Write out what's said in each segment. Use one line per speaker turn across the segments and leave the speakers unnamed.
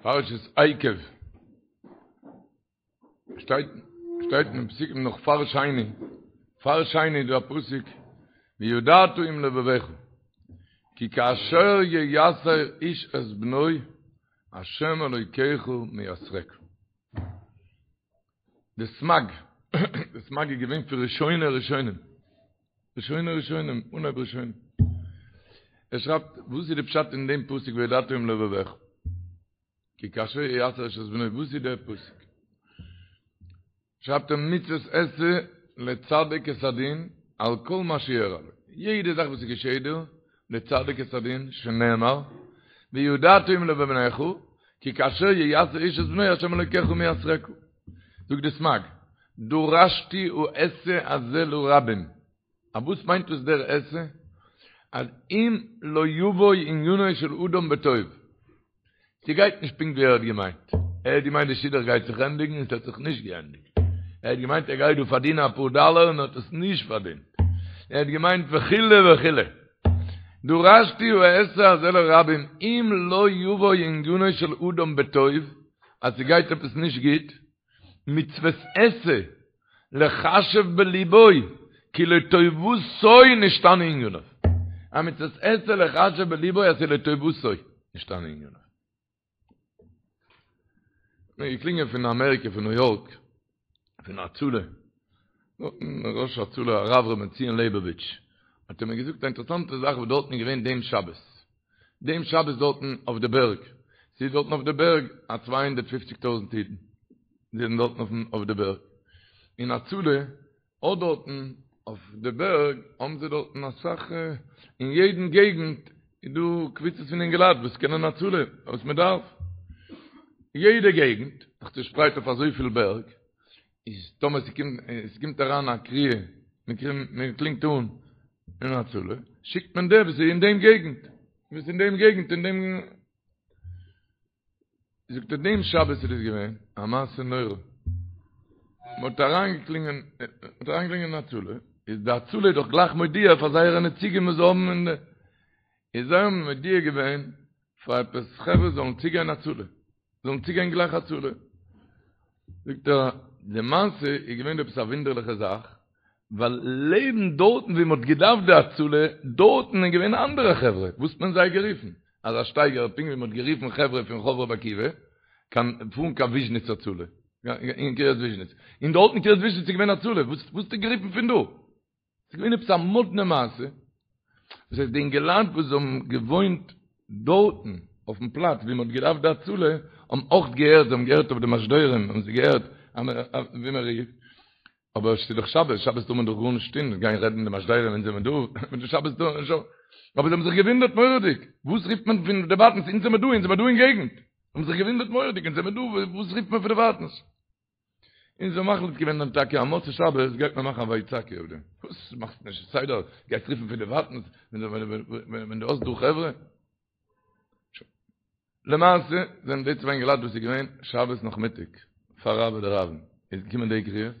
פרשת עקב שטייט שטייט אין פסוקים נאך פאר שני פאר שני איז דא א פסוק וידעת עם לבבך כי כאשר ייסר איש את בנו השם אלוקיך מייסרך די סמג די סמג איז געווען פון ראשוני ראשונים ראשוני ראשונים אנהייב ראשונים ער שרייבט וואס איז די פשט אין דעם פסוק וידעת עם לבבך כי כאשר ייסר איש את בנו וואס איז דער פסוק שרייבט ער מצות עשה לצדיק את הדין על כל מה שאירע לו יעדע זאך וואס איז געשעט דיר לצדיק את הדין שנאמר וידעת עם לבבך כי כאשר ייסר איש את בנו השם אלוקיך מייסרך זאגט די סמג דרשתי העשה הזה לרבים א וואס מיינט דאס דער עשה אז אם לא יבוא עניינו של אדם בטוב ס'גייט נישט פונקט ווי ער האט געמיינט. ער האט געמיינט די שידוך גייט זיך ענדיגן און ס'האט זיך נישט געענדיגט. ער האט געמיינט ער גייט דא פארדינען אפאר דאלער און האט עס נישט פארדינט. ער האט געמיינט וכו' וכו'. דרשתי העשה הזה לרבים אם לא יבוא עניינו של אדם בטוב, אז ס'גייט עפעס נישט גוט, מצוות עשה לחשב בליבו כי לטובתו נשתנה עניניו. א מצוות עשה לחשב בליבו אז ס'איז לטובתו נשתנה עניניו. מיר געקלינגען פון אמעריקע פון ניו יארק פון הצלה ראש הצלה הרב ר' בנציון לעבאוויטש האט ער מיר געזאגט א אינטערעסאנטע זאך וואס דארטן איז געווען דעם שבת דעם שבת דארטן אויף די בערג ס'איז דארטן אויף די בערג א 250 טויזנט אידן זענען דארטן אויפן אויף די בערג, און הצלה האט דארטן אויף די בערג האבן זיי דארטן אסאך, אין יעדן געגנט איז דא קבוצות פון אינגעלייט וואס קענען הצלה וואס מען דארף, יעדע געגנט זיך צושפרייט אויף אזויפיל בערג, איז טאמער ס'קומט ס'קומט אריין א קריאה, מען קלינגט אן אין הצלה, שיקט מען דער וואס איז אין דעם געגנט, וואס איז אין דעם געגנט אין דעם. זאגט ער דעם שבת איז דאס געווען א מעשה נורא, מען האט אריינגעקלינגען, מען האט אריינגעקלינגען אין הצלה, איז די הצלה איז דאך גלייך מודיע פאר זייערע נציגים וואס זיי האבן אין די, איז זיי האבן מודיע געווען פאר עפעס חברה זאלן צוגיין הצלה, זאלן צוגיין גלייך הצלה, זאגט ער די מעשה איז געווען עפעס א וואונדערליכע זאך, ווייל לעבן דארטן ווי מ'האט געדארפט די הצלה, דארטן איז געווען אנדערע חברה, וואס האט מען זיי גערופן? אזא שטייגער פונקט ווי מ'האט גערופן חברה פון רחוב רבי עקיבא, קיין פארן קיין וויזשניץ הצלה, אין קרית וויזשניץ, און דארטן אין קרית וויזשניץ איז געווען הצלה, וואס האסטו גערופן פון דא? ס'איז געווען עפעס א מאדנע מעשה, דאס הייסט די אינגעלייט וואס האבן געוואוינט דארטן אויפן פלאץ ווי מ'האט געדארפט די הצלה, האבן אויך געהערט, זיי האבן געהערט אויף די משדרים, האבן זיי געהערט ווי מ'רופט, אבער ס'איז דאך שבת, שבת טאר מען דאך גארנישט טון, גיין רעדן די משדרים ווען זעמער דא, מיט די שבת טאר מען נישט, אבער זיי האבן זיך געוואונדערט מורא'דיג, וואס רופט מען פון דערווייטנס, אונז זעמער דא, אונז זעמער דא אין געגנט, האבן זיך געוואונדערט מורא'דיג, אונז זעמער דא, וואס רופט מען פון דערווייטנס? און זיי האבן מחליט געווען דאן טאקע אז מוצאי שבת גייט מען מאכן א ויצעקו אויף דעם, וואס מאכסט נישט סדר, גייסט רופן פון דערווייטנס, ווען דו האסט דא חברה? למעשה זענען די צוויי אינגעלייט וואס איז געווען שבת נאכמיטאג פאר רעוא דרעוין איז געקומען די קריאה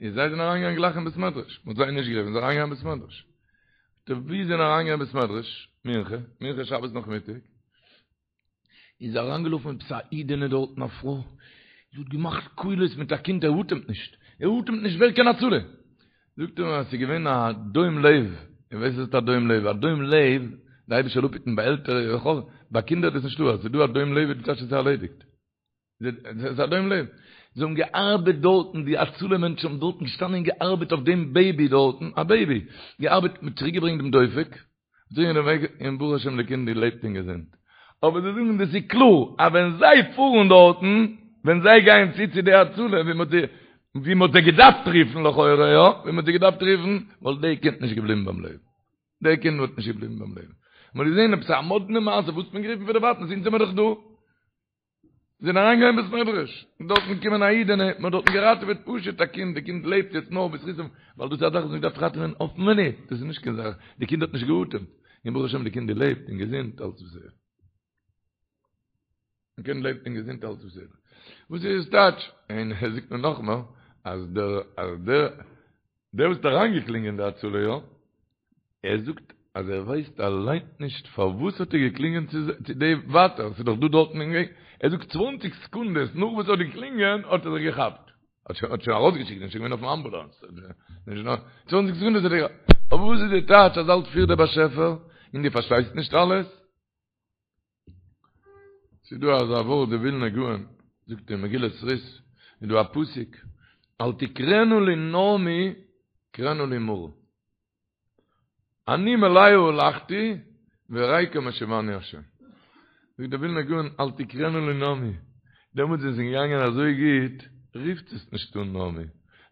איז זיי זענען אריינגעגאנגען גלייך אין בית מדרש מ'האט זיי נישט גערופן זיי זענען אריינגעגאנגען אין בית מדרש די ווי זענען אריינגעגאנגען אין בית מדרש מנחה מנחה שבת נאכמיטאג איז אריינגעלאפן עפעס א אידענע דארטן א פרוי זי האט געמאכט קולות מיט א קינד ער אטעמט נישט ער אטעמט נישט ווער קען הצלה זאגט ער מיר אז ס'איז געווען א דום לב, איר ווייסט וואס איז א דום לב? א דום לב, די אייבערשטער זאל אפהיטן ביי עלטערע וכו', ביי קינדער איז דאס נישטא, אז ס'איז דא א דום לב איז די טייטש עס איז ערלעדיגט. ס'איז א דום לב. זיי האבן געארבעט דארטן, די הצלה מענטשן האבן דארטן געשטאנען און געארבעט אויף דעם בעיבי דארטן, א בעיבי, געארבעט, מ'האט צוריקגעברענגט דעם דופק, און ברוך השם די קינד לעבט און געזונט. אבער זיי זאגן דאס איז קלאר אז ווען זיי פארן דארטן, ווען זיי גייען צו צו די הצלה ווי מ'האט זיי ווי מ'האט זיי געדארפט רופן לכאורה יא, ווי מ'האט זיי געדארפט רופן, וואלט די קינד נישט געבליבן ביים לעבן. די קינד וואלט נישט געבליבן ביים לעבן. מ'האט געזען עפעס א מאדנע מעשה וואס האט מען גערופן פון דערווייטנס אונז זעמער דאך דא. זענען אריינגעגאנגען אין בית מדרש, און דארטן געקומען א אידענע, מען האט דארטן געראטעוועט פשוט א קינד, די קינד לעבט יעצט נאר בזכותם, ווייל דאס איז א זאך וואס מען דארף ראטעווען אויפן מינוט, דאס איז נישט קיין זאך, די קינד האט נישט געאטעמט, און ברוך השם די קינד לעבט און געזונט אלץ בסדר. די קינד לעבט און געזונט אלץ בסדר. וואס איז עס טייטש? און ער זאגט מיר נאכמער, אז דער, אז דער, דער וואס האט אריינגעקלינגען די הצלה יא, ער זאגט. אז ער ווייסט אליין נישט פארוואס האט ער געקלינגען צו די ווייטער, ס'איז דאך דא דארטן אין געגנט, ער זאגט צוואנציג סעקונדעס נאך וואס ער האט געקלינגען האט ער זיך געכאפט, האט שוין ארויסגעשיקט, איז שוין געווען אויפן אמבולאנס, צוואנציג סעקונדעס האט ער געכאפט, אבער וואס איז די טייטש אז אלץ פירט דער באשעפער און דו פארשטייסט נישט אלעס? ס'איז דא אזא ווארט די ווילנא גאון זאגט אין מגילת רות איז דא א פסוק אל תקראנה לי נעמי קראנה לי מרא אני מלאה הלכתי וריקם השיבני השם זאגט די ווילנא גאון אל תקראנה לי נעמי דעמאלטס ווען ס'איז געגאנגען אזוי גוט רופט עס נישט אן נעמי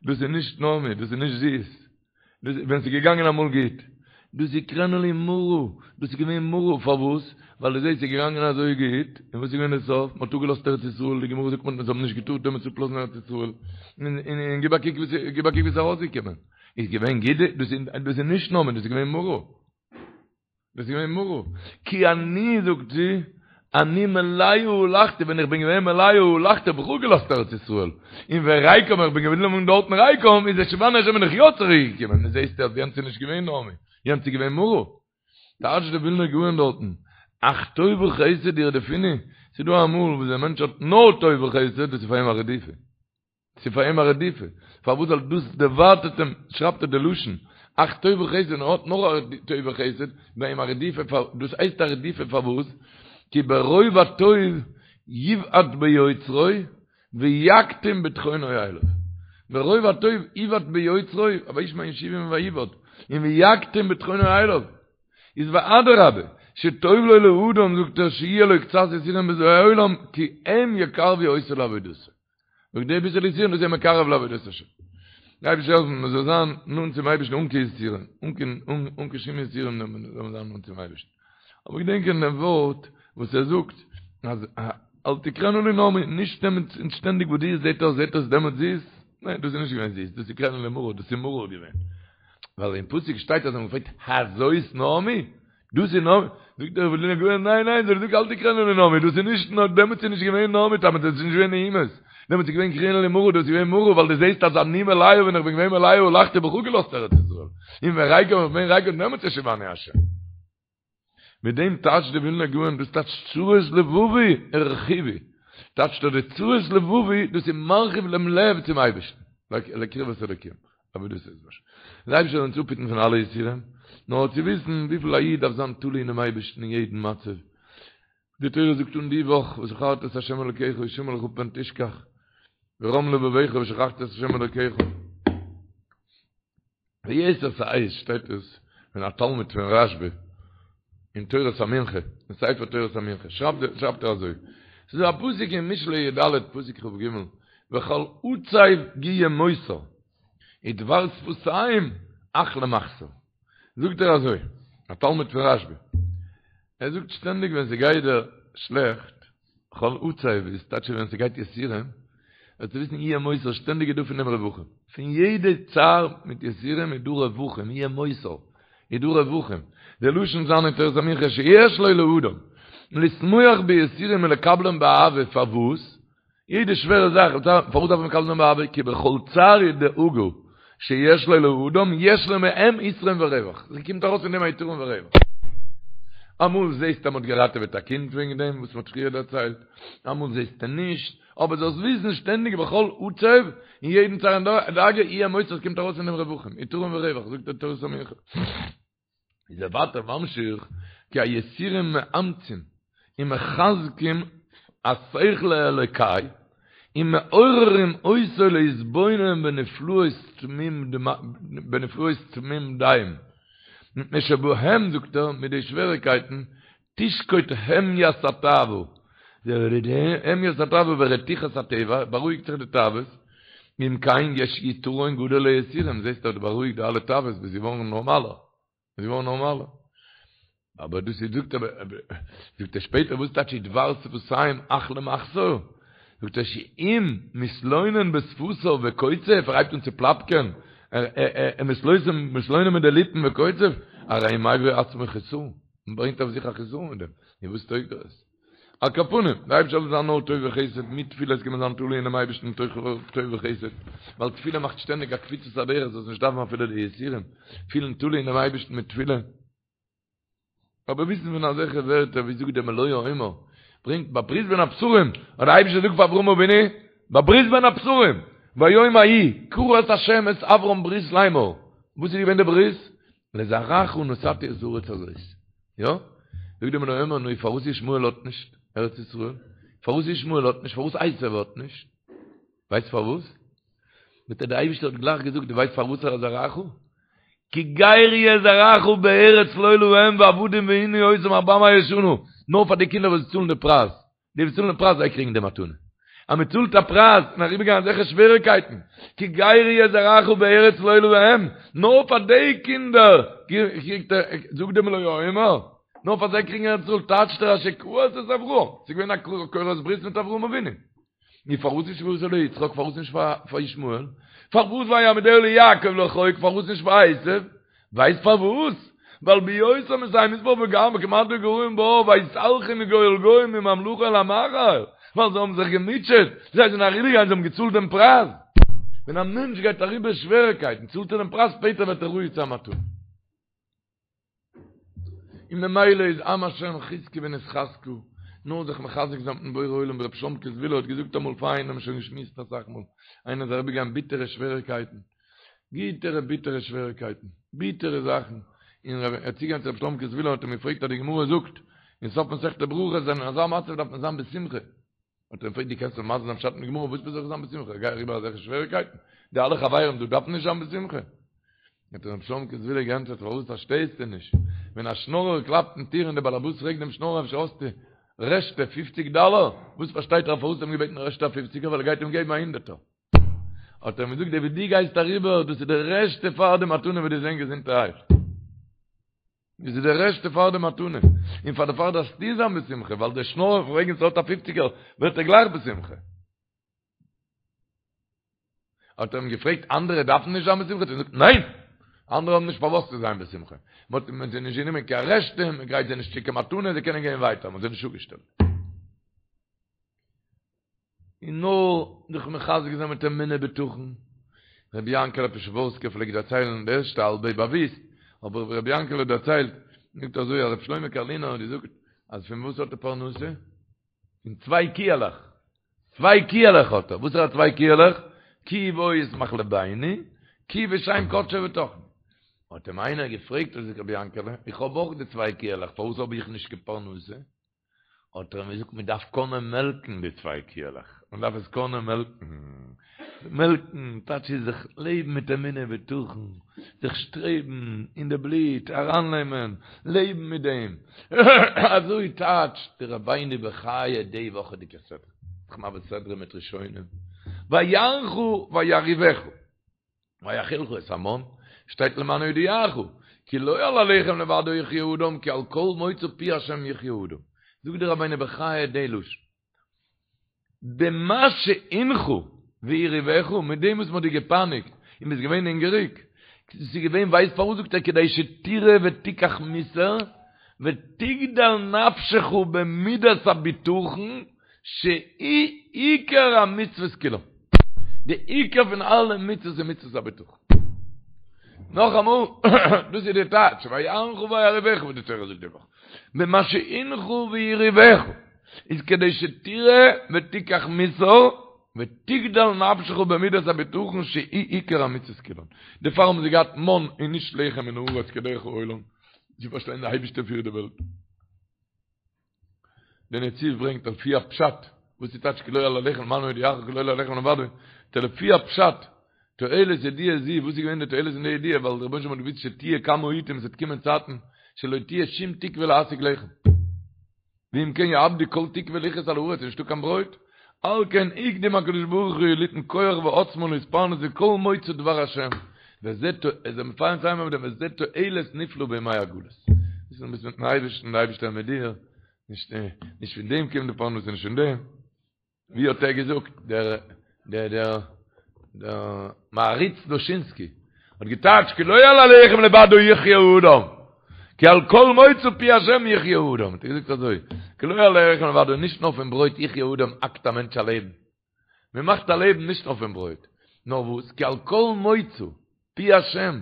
דאס איז נישט נעמי דאס איז נישט זיס ווען ס'איז געגאנגען אמאל גוט. דאס איז קראנה לי מרא, דאס איז געווען מרא, פארוואס? ווייל דו זעסט ס'איז געגאנגען אזוי גוט, און וואס איז געווען די סוף? מ'האט אפגעלאזט ארץ ישראל, די גמרא זאגט מ'האט זיי האבן נישט געטארט דעמאלטס אפלאזן ארץ ישראל, און גיב א קוק וואס גיב א קוק וואס איז ארויסגעקומען, איז געווען גוט, דאס איז נישט נעמי, דאס איז געווען מרא. דאס איז געווען מרא. כי אני, זאגט זי, אני מלאה הלכתי, ווען איך בין געווען מלאה הלכתי האב איך אפגעלאזט ארץ ישראל, און וריקם איך בין געבליבן דארטן ריקם, איז השיבני השם בין איך יא צוריק געקומען, נו זעסטו אז יענץ איז נישט געווען נעמי, יענץ איז געווען מרא. טייטשט די ווילנער גאון דארטן, אך טוב וחסד ירדפוני, ס'איז דא אמאל וואס דער מענטש האט נאר טוב וחסד, דאס איז פאר אים א רדיפה. ס'איז פאר אים א רדיפה, פארוואס ווייל דאס דערווייטערט אים, שרייבט ער די לשון, אך טוב וחסד, און ער האט נאר א טוב וחסד, ביי אים א רדיפה, דאס הייסט א רדיפה פארוואס? כי ברוב הטוב יבעט ביוצרו ויקטין בטחונו אליו, ברוב הטוב יבעט ביוצרו, וישמן ישורון ויבעט, און ויקטין בטחונו אליו, איז ואדרבה, שטוב לו לאדם זאגט ער שיהיה לו קצת יסורים בזה העולם כי הם יקרבו אותו לעבודתו. זאגט די ביסעלע יסורים דאס איז מקרב לעבודת השם. דער אייבערשטער זאל העלפן מען זאל זיין נאנט צום אייבערשטן אן קיין יסורים, אן קיין אן קיין שום יסורים זאל מען זיין נאנט צום אייבערשטן. אבער געדענקען דעם ווארט וואס ער זאגט אז אל תקראנה לי נעמי, נישט נעמען שטענדיג וואס דיר זעט אויס זעט אויס דעמאלטס זיס, ניין דאס איז נישט געווען זיס, דאס איז קראנה לי מרא, דאס איז מרור געווען. ווייל אין פסוק שטייט אז מען פרעגט הזאת נעמי? דאס איז נעמי, זאגט דער ווילנער גאון, ניין ניין, זאל איך זאגן אל תקראנה לי נעמי, דאס איז נישט נאר, דעמאלטס איז נישט געווען נעמי, דעמאלטס איז נישט געווען נעימות, דעמאלטס איז געווען קראנה לי מרא, דאס איז געווען מרא, ווייל דו זעסט אז אני מלאה, ווען איך בין געווען מלאה הלכתי האב איך אפגעלאזט ארץ ישראל, און וריקם איך בין ריקם דעמאלטס השיבני השם. מיט דעם טייטשט דער ווילנער גאון, דאס טייטשט צרות לבבי הרחיבו, טייטשט ער די צרות לבבי, דאס איז מרחיב דעם לב צום אייבערשטן, לקרבת אלוקים. אבער דאס איז נישט. דער אייבערשטער זאל אונז אפהיטן פון אלע יסורים, נאר צו וויסן וויפיל א איד דארף זיין תלוי אינעם אייבערשטן אין יעדן מצב. די תורה זאגט אן די וואך, וזכרת את ה' אלוקיך השמר לך פן תשכח, ורם לבבך ושכחת את ה' אלוקיך. ביתר שאת שטייט עס פון א תלמיד פון רשב"א אין תורת המנחה, אין ספר תורת המנחה, שרייבט ער אזוי, ס'איז דא א פסוק אין משלי י"ד פסוק כ"ג, וכל עצב יהיה מותר, ודבר שפתיים אך למחסור. זאגט ער אזוי, א תלמיד פון רשב"א, ער זאגט שטענדיג ווען ס'גייט דיר שלעכט, כל עצב איז טייטש ווען ס'גייט יסורים, זאלסטו וויסן יהיה מותר, שטענדיג איז דא פון דעם רווחים. פון יעדע צער מיט יסורים איז דא רווחים, יהיה מותר, איז דא רווחים. די לשון זיין אין תורת המנחה שיש לו לאדם, לשמוח ביסורים ולקבלם באהבה, פארוואס? יעדע שווערע זאך, פארוואס דארף מען מקבל זיין באהבה? כי בכל צער ודאגה שיש לו לאדם, יש לו מהם יתרון ורווח. ס'קומט ארויס פון דעם א יתרון ורווח. אמאל זעסטו אז מ'האט געראטעוועט א קינד וועגן דעם וואס מ'האט פריער דערציילט, אמאל זעסטו נישט, אבער זאלסט וויסן שטענדיג בכל עצב, אין יעדן צער און דאגה, יהיה מותר, ס'קומט ארויס פון דעם רווחים, יתרון ורווח, זאגט דער תורת המנחה. איז ער ווייטער ממשיך, כי היסורים מאמצים ומחזקים השכל האלוקי ומעוררים אותו להתבונן בנפלאות בנפלאות תמים דעים, מפני שבהם, זאגט ער, מיט די שוועריקייטן, תשקוט המיית התאווה, המיית התאווה ורתיחת הטבע, בארואיגט זיך די תאוות, אם כן יש יתרון גדול ליסורים, זעסט אז דו בארואיגט די אלע תאוות ביסט געווארן נארמאלער, ביסט געווארן נארמאלער. אבער דאס איז זאגט ער, זאגט ער שפעטער וואס טייטש ודבר שפתיים אך למחסור? זאגט ער שאם מתלונן בשפתיו וקוצף, ער הייבט אן צו פלאפקען, ער מתלונן מיט די ליפן וקוצף, הרי מביא עצמו חסרון, מען ברענגט אויף זיך א חסרון מיט דעם, און וואס טויג דאס? על כל פנים, דער אייבערשטער זאל זיין נאר טוב וחסד, מיט תפילות קען מען זיין תלוי אינעם אייבערשטן טוב וחסד, ווייל תפילה מאכט שטענדיג א קפיצת הדרך זאלסט נישט דארפן אפילו די יסורים, פילן תלוי אינעם אייבערשטן מיט תפילה. אבער וויסן פון אזעלכע ווערטער ווי זאגט דער מלא העומר, ברענגט ביי ברית בין הבתרים, האט דער אייבישטער געזאגט פאר אברהם אבינו, ביי ברית בין הבתרים, ביום ההוא כרת השם את אברם ברית לאמור, וואס איז געווען די ברית? לזרעך נתתי את הארץ הזאת. יא? זאגט דער מלא העומר, נו פארוואס ישמעאל האט נישט ארץ ישראל? פארוואס ישמעאל האט נישט? פארוואס עשו האט נישט? ווייסט פארוואס? זאגט ער, דער אייבישטער האט גלייך געזאגט, דו ווייסט פארוואס ער איז זרעך? כי גר יהיה זרעך בארץ לא להם ועבדום וענו אותם ארבע מאות שנה, נאר פאר די קינדער וואס צאלן די פרייז, די וואס צאלן די פרייז זיי קריגן די מתנה. אז מען צאלט א פרייז און אריבערגיין אזעלכע שוועריקייטן, כי גר יהיה זרעך בארץ לא להם, נאר פאר די קינדער קריגט ער, זאגט דער מלא העומר, נאר פאר זיי קריגן ארץ ישראל, טייטשט ער אשר כרת את אברהם, ס'איז געווען א כורת ברית מיט אברהם אבינו. נו פארוואס נישט ועשה ליצחק פארוואס נישט פאר ישמעאל? פארוואס ויעמידה ליעקב לחוק פארוואס נישט פאר עשו? ווייסט פארוואס? ווייל בהיותם מתי מספר וגם וכמעט וגרועים בה ויתהלכו מגוי אל גוי מממלכה אל עם אחר ווייל זיי האבן זיך געמוטשעט זיי זענען אריבערגעגאנגען זיי האבן געצאלט דעם פרייז ווען א מענטש גייט אריבער שוועריקייטן צאלט ער דעם פרייז שפעטער ווערט ער ראוי צו א מתנה. און ממילא איז עם השם חזקו ונתחזקה, נאר זיך מחזק זיין מיטן בורא עולם ווי רבי שלומקע זוויהלער האט געזאגט אמאל פאר איינעם שוין געשמועסט אסאך מאל, איינער איז אריבערגעגאנגען ביטערע שוועריקייטן, ביטערע ביטערע שוועריקייטן, ביטערע זאכן, און ער איז צוגעגאנגען צו רבי שלומקע זוויהלער האט אים געפרעגט אז די גמרא זאגט אין סוף מסכת ברכות אז אין אזא מצב דארף מען זיין בשמחה, האט ער אים געפרעגט דו קענסט מיר מסביר זיין פשט אין די גמרא וואס זאל איך זיין בשמחה איך גיי אריבער אזעלכע שוועריקייטן די אלע חברים דא דארפן נישט זיין בשמחה האט אים ר' שלומקע זוויהלער געענטפערט פארוואס פארשטייסטו נישט ווען א שנארער קלאפט אין טיר און דער באלעבאס פרעגט דעם שנארער אפשר האסטו רעשטע פופציג דאלער וואס פארשטייט ער פארוואס האט אים געבעטן רעשטע א פופציגער ווייל ער גייט אים געבן א הונדערטער האט ער אים געזאגט די וואס דו גייסט אריבער דאס איז די רעשטע פאר די מתנה וועסט זיין געזונטערהייט דאס איז די רעשטע פאר די מתנה, און פאר דערפאר דארפסטו זיין בשמחה, ווייל דער שנארער פרעגן צו האט א פופציגער, ווערט ער גלייך בשמחה. האט ער אים געפרעגט, אנדערע דארפן נישט זיין בשמחה? האט ער געזאגט, ניין! אנדערע האבן נישט פארוואס צו זיין בשמחה. מען האט זיי נישט גענומען קיין רעשטע, מען גרייט זיי נישט צו קיין מתנה, זיי קענען גיין ווייטער, מען האט זיי נישט אפגעשטעלט. און נאר זיך מחזק זיין מיט אמונה בטחון. רבי יענקעלע פשעווארסקער פלעגט דערציילן, די ערשטע האלבע איז באוויסט, אבער רבי יענקעלע האט דערציילט, זאגט אזוי אז רבי שלמה קארלינער האט געזאגט אז פון וואס האט ער פרנסה? פון צוויי קיעלעך, צוויי קיעלעך האט ער, וואס איז א צוויי קיעלעך? כי בו ישמח לבינו, כי בשם קדשו בטחנו. האט אים איינער געפרעגט, האט געזאגט רבי יענקעלע, איך האב אויך די צוויי קיעלעך, פארוואס האב איך נישט קיין פרנסה? האט ער אים געזאגט מען דארף קענען מעלקן די צוויי קיעלעך, מען דארף עס קענען מעלקן, מעלקן טייטש איז זיך לעבן מיט אמונה ובטחון, זיך שטרעבן אין די בלוט ארייננעמען, לעבן מיט דעם, אזוי טייטשט די רבינו בחיי די וואכעדיגע סדרה, זיך מעביר סדרה מיט ראשונים, ויענך וירעיבך. ויאכילך את המן, שטייט למען הודיעך, כי לא על הלחם לבדו יחיה אדם, כי על כל מוצא פי השם יחיה אדם. זאגט דער רבינו בחיי די לשון. במה שענך והרעיבך, מיט דעם וואס מען האט דיר געפייניגט און ביסט געווען הונגעריג, ס'איז געווען ווייסט פארוואס זאגט ער כדי שתראה ותיקח מוסר ותגדל נפשך במידת הבטחון שהיא עיקר המצוות כולם. די עיקר פון אלע מצוות איז מצוות הבטחון. נאכאמאל, דאס איז די טייטש, ויענך וירעיבך וואס די תורה זאגט די וואך. במה שענך והרעיבך, איז כדי שתראה ותיקח מוסר, ותגדל נפשך במידת הבטחון שהיא עיקר המצוות כולן. דערפאר האבן זיי געהאט מן און נישט לחם מן הארץ כדרך העולם, צו פארשטיין די אייבערשטער פירט די וועלט. דער נציב ברענגט על פי הפשט, וואס איז טייטש כי לא על הלחם למען הודיעך כי לא על הלחם לבדו, לפי הפשט, תועלת ידיעה זו, וואס איז געווען די תועלת אין די ידיעה, ווייל דער רבונו של עולם האט געוואוסט שתהיה כמה עיתים עס וועט קומען צייטן שלא תהיה שום תקווה להשיג לחם. ואם כן יאבדו כל תקווה לחיות על הארץ, נישטא קיין ברויט, על כן הקדים הקדוש ברוך הוא ליתן כח ועוצמה להתפרנס מכל מוצא דבר השם, וזה איז ער מפארן צוזאמען מיט דעם וזה תועלת נפלא בימי הגלות. ביסט ביסט מיטן אייבערשטן, דער אייבערשטער איז מיט דיר, נישט נישט פון דעם קומט די פרנסה, נישט פון דעם. ווי האט ער געזאגט דער דער דער דער מהרי"ץ דושינסקי האט געטייטשט כי לא על הלחם לבדו יחיה האדם כי על כל מוצא פי השם יחיה האדם האט ער געזאגט אזוי כי לא על הלחם לבדו נישט נאר פון ברויט יחיה האדם האקט א מענטש א לעבן מען מאכט א לעבן נישט נאר פון ברויט נאר וואס כי על כל מוצא פי השם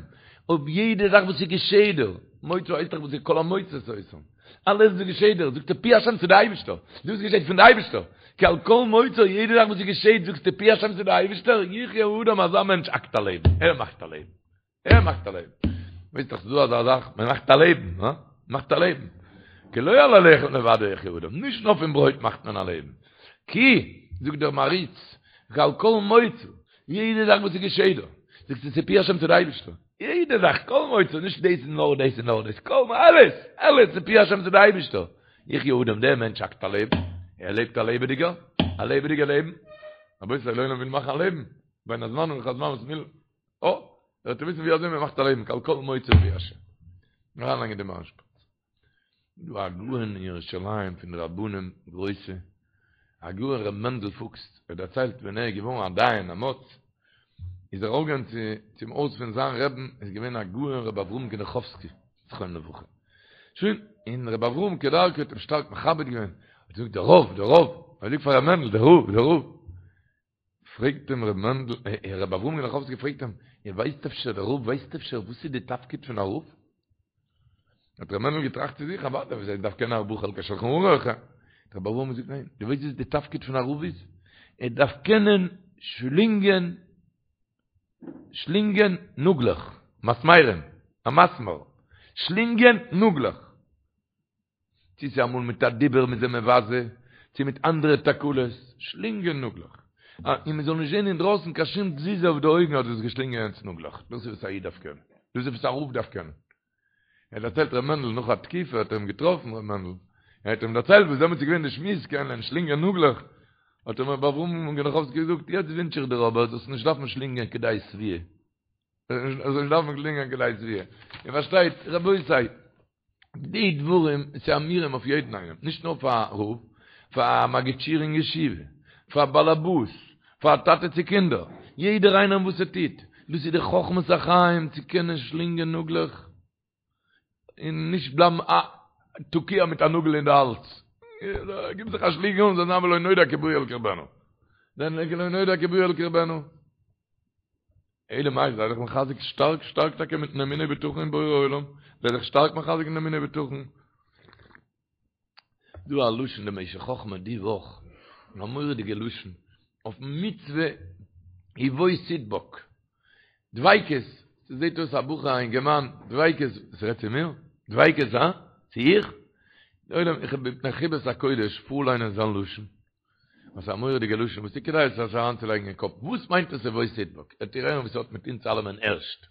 אויף יעדע זאך וואס איז געשעט דא מוצא הייסט דאך וואס איז כל המוצא אותם. אלעס וואס געשעט דיר, זאגסטו פי השם ס'איז די אייבישטער, דאס געשעט פון די אייבישטער, כי על כל מוצא, יעדע זאך וואס געשעט זאגסטו פי השם ס'איז די אייבישטער, יחיה האדם אזא מענטש האקט א לעבן, ער מאכט א לעבן, ער מאכט א לעבן. ווייסט דאך ס'איז דא אזא זאך, מען מאכט א לעבן, הא? מאכט א לעבן. כי לא על הלחם לבדו יחיה האדם, נישט נאר פון ברויט מאכט מען א לעבן. כי, זאגט דער מהרי"ץ, כי על כל מוצא, יעדע זאך וואס ס'געשעט דא, זאגסטו ס'איז פי השם ס'איז די אייבישטער. יעדע זאך, כל מוצא, נישט דאס און נאר דאס און נאר דאס, כל, אלעס, אלעס איז פי השם ס'איז די אייבישטער. יחיה האדם, דער מענטש האקט א לעבן, ער לעבט א לעבעדיגער, א לעבעדיגער לעבן. רבותי, דער עולם וויל מאכן א לעבן, בין הזמנים לכל הזמן וואס מ'וויל, אה, זאלט איר וויסן ווי אזוי מ'מאכט א לעבן, כי על כל מוצא פי השם. אריינלייגן די מארש-פארט. דא א גאון אין ירושלים פון די רבנים גרויסע, הגאון ר' מענדל פוקס, ער דערציילט ווען ער איז געווארן א דיין א מו"ץ, איז ער ארויפגעגאנגען צו צום הויז פון זיין רעבן, איז געווען הגאון ר' אברהם גענעכאווסקי זכרונו לברכה, שוין, און ר' אברהם כדרכו האט אים שטארק מכבד געווען, האט געזאגט דער רב, דער רב, ער זאגט פאר ר' מענדל, דער רב, דער רב, פרעגט אים ר' מענדל, ר' אברהם גענעכאווסקי פרעגט אים, איר ווייסט אפשר, דער רב ווייסט אפשר וואס איז די תפקיד פון א רב? האט ר' מענדל געטראכט צו זיך, אוודאי, וואס ער דארף קענען ארבעה חלקי שלחן ערוך. האט ר' אברהם געזאגט, ניין, דו ווייסט וואס די תפקיד פון א רב איז? ער דארף קענען שלינגען, שלינגען נאגלעך, מסמרים, א מסמר, שלינגען נאגלעך. צו ס'איז אמאל מיט א דיבור מ'איז אים מבזה, צו מיט אנדערע תקלות, שלינגען נאגלעך. און מ'זאל נישט זען אינדרויסן קיין שום תזוזה אויף די אויגן אז דו האסט געשלינגען יענץ נאגלעך. דאס איז וואס א איד דארף קענען. דאס איז וואס א רב דארף קענען. ער דערציילט ר' מענדל נאך א תקופה האט ער אים געטראפן ר' מענדל, ער האט אים דערציילט וואס דעמאלטס איז געווען די שמועס קענען שלינגען נאגלעך, האט אים ר' אברהם גענעכאווסקי געזאגט, יעצט ווינטש איך דיר אבער זאלסט נישט דארפן שלינגען כדי שביעה. זאלסט נישט דארפן שלינגען כדי שביעה. איר פארשטייט רבותי, די דברים איז אמירים אויף יעדן איינעם, נישט נאר פאר א רב, פאר א מגיד שיעור אין ישיבה, פאר א באלעבאס, פאר א טאטע צו קינדער, יעדער איינער וואס ער טוט, דאס איז די חכמת החיים צו קענען שלינגען נאגלעך און נישט בלייבן א תקוע מיט א נאגל אין די האלז, גיב זיך א שלינג אן זאל זיין ולא נודע כי באו אל קרבנה, ולא נודע כי באו אל קרבנה. אלא מאי, זיי זיך מחזק שטארק שטארק טאקע מיטן אמונה ובטחון אין בורא עולם, זיי זיך שטארק מחזק אין אמונה ובטחון. דא א לשון די משך חכמה די וואך, א מורא'דיגע לשון, אויפן מצוה ובו תדבק, דביקות, ס'זעט אויס א בחור א אינגערמאן, דביקות, ס'רעדט צו מיר? דביקות הא? צו איך? די עולם, איך האב מפני חיבת הקודש פארליינען זיין לשון, וואס א מורא'דיגע לשון וואס איז כדאי עס אריינצולייגן אין קאפ, וואס מיינט עס ובו תדבק? וועט איר הערן וואס ס'האט מיט אונז אלעמען ערשט.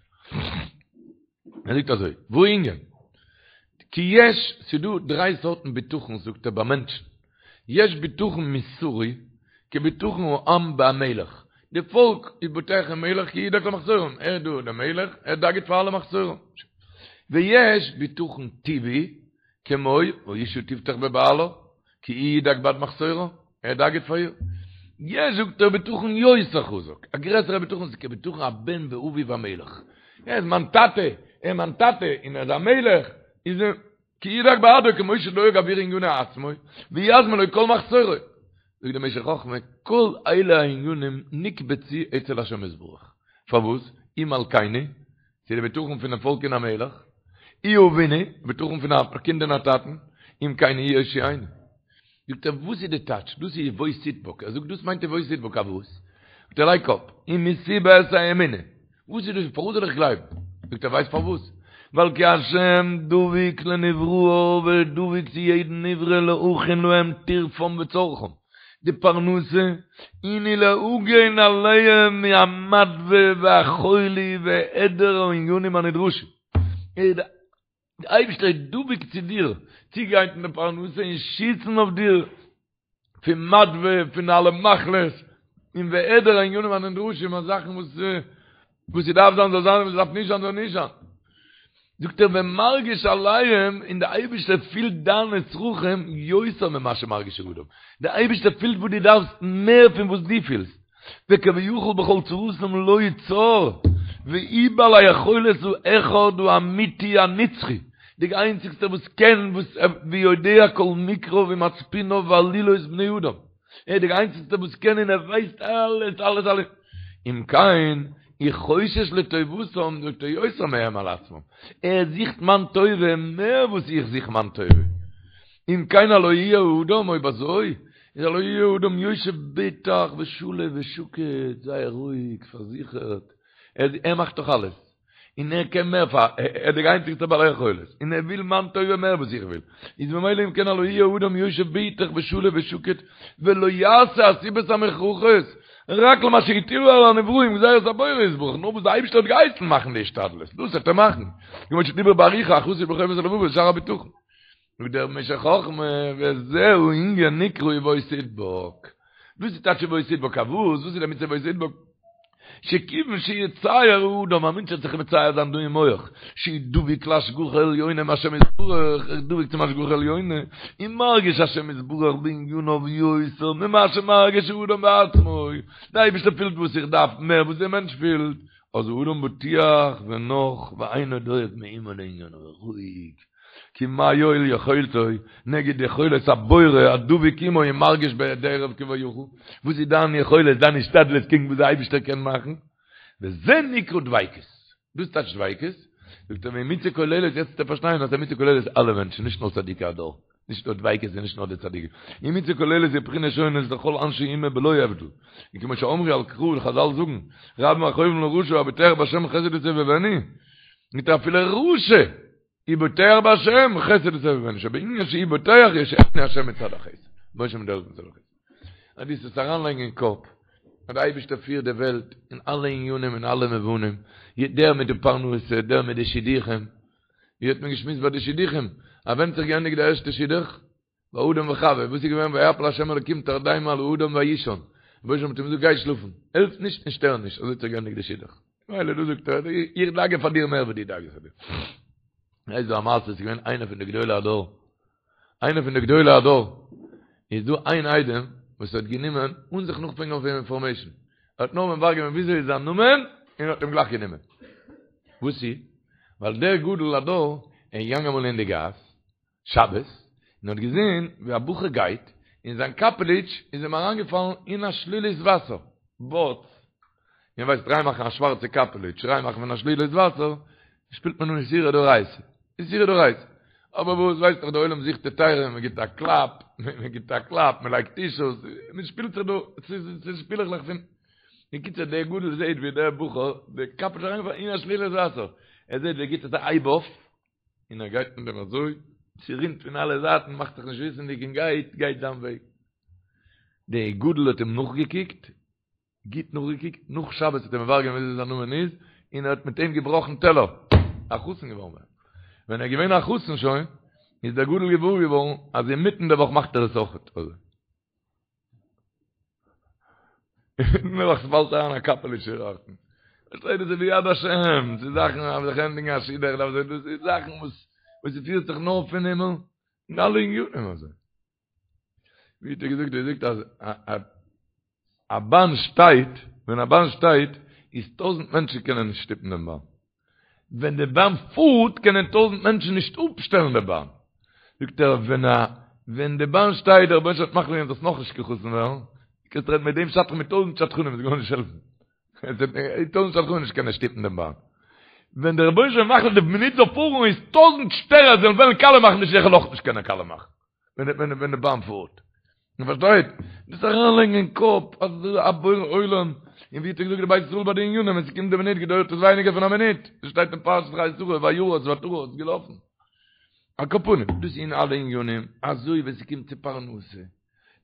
ער זאגט אזוי, והענין, כי יש, ס'דא דריי סארטן בטחון זאגט ער ביי מענטשן, יש בטחון מוסרי, כבטחון העם בהמלך, די פאלק איז בוטח אין מלך כי ידאג למחסורם, ער איז דא דער מלך, ער דאגה'ט פאר אלע מחסורים. ויש בטחון טבעי, כמו האשה תבטח בבעלה, כי הוא ידאג בעד מחסורה, ער דאגה'ט פאר איר. יש זאגט ער בטחון יותר חזק, א גרעסערע בטחון איז כבטחון הבן באביו המלך. ער איז מיין טאטע, ער איז מיין טאטע און ער איז א מלך, איז ער כי ידאג בעדו כמו שדואג עבור עניני עצמו, ויזמין לו כל מחסורו. זאגט דער משך חכמה, כל אלה הענינים נקבצו אצל השם יתברך. פארוואס? הוא מלכנו, ס'איז די בטחון פונעם פאלק אין א מלך, הוא אבינו, בטחון פון א קינד אין א טאטן, אם כן הוא יושיענו. זאגט ער, וואס איז די טייטש? דאס איז ובו תדבק. ער זאגט, דאס מיינט ובו תדבק, א וואס? זאגט ער, לייג קאפ, ומסיבת האמונה. וואס איז דאס? פארוואס זאל איך גלייבן? זאגט ער, ווייסט פארוואס? ווייל כי השם דבוק לנבראיו, ער איז דבוק צו יעדן נברא להכין להם טרפם וצרכם. די פרנסה, און ולהגן עליהם מהמדוה והחולי והעדר הענינים הנדרשים. דער אייבערשטער איז דבוק צו דיר, צוגרייטן די פרנסה און שיצן אויף דיר פון מדוה, פון אלע מחלות, און והעדר הענינים הנדרשים, אז זאכן וואס וואס ס'דארף זיין זאל זיין און וואס ס'דארף נישט זיין זאל נישט זיין. זאגט ער ומרגיש עליהם, און דער אייבערשטער פילט דיינע צרכים יותר ממה שמרגיש האדם, דער אייבערשטער פילט וואס דו דארפסט מער פון וואס דו פילסט, וכביכול בכל צרתם לו צר, והוא בעל היכולת האחד האמיתי הנצחי, די איינציגסטער וואס קען וואס ויודע כל מקריו ומצפוניו ועלילות בני אדם. ער איז דער איינציגסטער וואס קען און ער ווייסט אלעס אלעס אלעס. אם כן, הוא חושש לטובתם זאגט ער יותר מהם על עצמם. ער זוכט מיין טובה מער וואס איך זוך מיין טובה. אם כן הלא יהיה האדם, אויב אזוי, איז הלא יהיה האדם יושב בטח ושלו ושקט, זייער רואיג, פארזיכערט, ער מאכט דאך אלעס, און ער קען מער פאר, ער איז דער איינציגסטער בעל יכולת, און ער וויל מיין טובה מער וואס איך וויל, איז ממילא אם כן הלא יהיה האדם יושב בטח ושלו ושקט, ולא יעשה הסיבות המוכרחות, רק למה שהטילו על הנבראים גזירת הבורא יתברך, נאר וואס די אייבערשטער האט געהייסן מאכן די השתדלות, דאס וועט ער מאכן, כמו שדיבר באריכות החסיד בחובת הלבבות שער הבטחון. זאגט דער משך חכמה, וזהו ענין נקרא ובו תדבק. דאס איז טייטש ובו תדבק, א וואס? וואס איז די מצוה ובו תדבק? שכיוון שיצייר האדם, א מענטש וועט זיך מצייר זיין דא אין מח, שהוא דבוק להשגחה עליונה מהשם יתברך, ער איז דבוק צום השגחה עליונה, און מרגיש השם יתברך בעניניו יותר ממה שמרגיש האדם בעצמו, דער אייבערשטער פילט וואס איך דארף מער וואס דער מענטש פילט, אז האדם בטוח ונח ואינו דואג מאומה לעניניו, רואיג. כי מה יועיל יכולתו נגד יכולת הבורא הדבוק עמו ומרגיש בהיעדרו כביכול, וואס איז דיין יכולת, דיין השתדלות קעגן וואס דער אייבערשטער קען מאכן? וזה נקרא דביקות. דאס טייטש דביקות, זאגט ער והיא מצוה כוללת, יעצט וועט איר פארשטיין אז ס'איז א מצוה כוללת אלע מענטשן, נישט נאר צדיקי הדור, נישט נאר דביקות איז נישט נאר די צדיקים, היא מצוה כוללת בבחינות שונות לכל אנשי אומה בלא הבדל, וכמו שאמרו על קרא, חזל זאגן, רבים מכאובים לרשע הבוטח בהשם חסד יסובבנו, מיט אפילו רשע הוא בוטח בהשם חסד יסובבנו שבענין שהוא בוטח יושיענו השם מצד החסד משה מדרך מצד החסד אז דו זאלסט אריינלייגן אין קאפ אז דער אייבערשטער פירט די וועלט אין אלע עניינים אין אלע מובנים דער מיט די פרנסה דער מיט די שידוכים ווי האט מען געשמועסט ביי די שידוכים אז ווען האט זיך געענדיגט די ערשטע שידוך ביי אדם וחווה וואס איז געווען ויפל השם אלקים תרדמה על האדם ויישן רבונו של עולם האט אים געזאגט גיי שלאפן העלף נישט און שטער נישט אזוי האט זיך געענדיגט די שידוך מילא דא זאגט ער, איך דאגה פאר דיר מער ווי דו דאגה'סט פאר דיר. איז דא א מעשה, ס'איז געווען איינער פון די גדולי הדור, איינער פון די גדולי הדור, איז דא איין איידעם וואס האט גענומען, אן זיך נאכפרעגן אויף אים אינפארמעישן, ער האט נאר מברר געווען וויאזוי איז זיין נאמען, און האט אים גלייך גענומען. וואס איז? ווייל דער גדול הדור איז געגאנגען אמאל אין די גאס, שבת, און האט געזען ווי א בחור גייט, און זיין קאפעליטש איז אים אריינגעפאלן אין א שלולית וואסער, באץ, איר ווייסט ריין מאכן א שווארצע קאפעליטש, ריין מאכן פון א שלולית וואסער, שפילט מען אן איסורא דאורייתא, איסורא דאורייתא, אבער וואס ווייסט דאך די עולם זוכט היתרים, מען גיבט א קלאפ, מען גיבט א קלאפ, מען לייגט טישוס, מען שפילט זיך דא, ס'איז שפילעכלעך פון, בקיצור דער גדול זעט ווי דער בחור, די קאפעליטש איז אריינגעפאלן אין א שלולית וואסער, ער זעט ווי ער גיבט עס א הייב אויף, און ער גייט מיט דעם אזוי, ס'רינט פון אלע זייטן, מאכט זיך נישט וויסענדיג און גייט, גייט זיין וועג. דער גדול האט אים נאכגעקוקט, גוט נאכגעקוקט, נאך שבת האט ער מברר געווען וויאזוי זיין נאמען איז, און ער האט מיט אים געבראכן טעלער, א חתן געווארן. ווען ער איז געווען א חתן שוין, איז דער גדול געוואר געווארן אז אינמיטן די וואך מאכט ער עס אויכעט אזוי. נעבעך ס'פאלט אריין א קאפעליטש דארטן. פארשטייט דאס איז ביד השם, ס'איז זאכן אז זיך ענדיגן א שידוך דארף זיין, דאס איז זאכן וואס וואס ס'פירט זיך נאר פון הימל, אין אלע עניינים אזוי. ווי האט ער געזאגט, ער זאגט אז א באן שטייט, ווען א באן שטייט, איז טויזענט מענטשן קענען נישט שטופן דעם באן. ווען די באן פארט קענען טויזענט מענטשן נישט אפשטעלן די באן. זאגט ער, ווען א ווען די באן שטייט, דער רבונו של עולם האט מחליט געווען זאלסט נאכנישט קיין חתן ווערן, קענסט רעדן מיט דעם שדכן מיט טויזענט שדכנים, עס וועט גארנישט העלפן. טויזענט שדכנים נישט קענען שטופן דעם באן. ווען דער רבונו של עולם מחליט די מינוט זאל פארן איז טויזענט שטערער זאלן וועלן קאלע מאכן די שידוך אויך נישט קענען קאלע מאכן. ווען ווען די באן פארט. מען פארשטייט? דאס אריינלייגן אין קאפ אז דאס איז א בורא עולם, און ווי האט ער געזאגט די בית ישראל ביי די עניינים, ווען ס'קומט די מינוט געדויערט עס ווייניגער פון א מינוט, דאס שטייט אין פרשת חיי שרה, וירץ ותרץ, געלאפן. על כל פנים, דאס איז אין אלע עניינים, אזוי ווען ס'קומט צו פרנסה.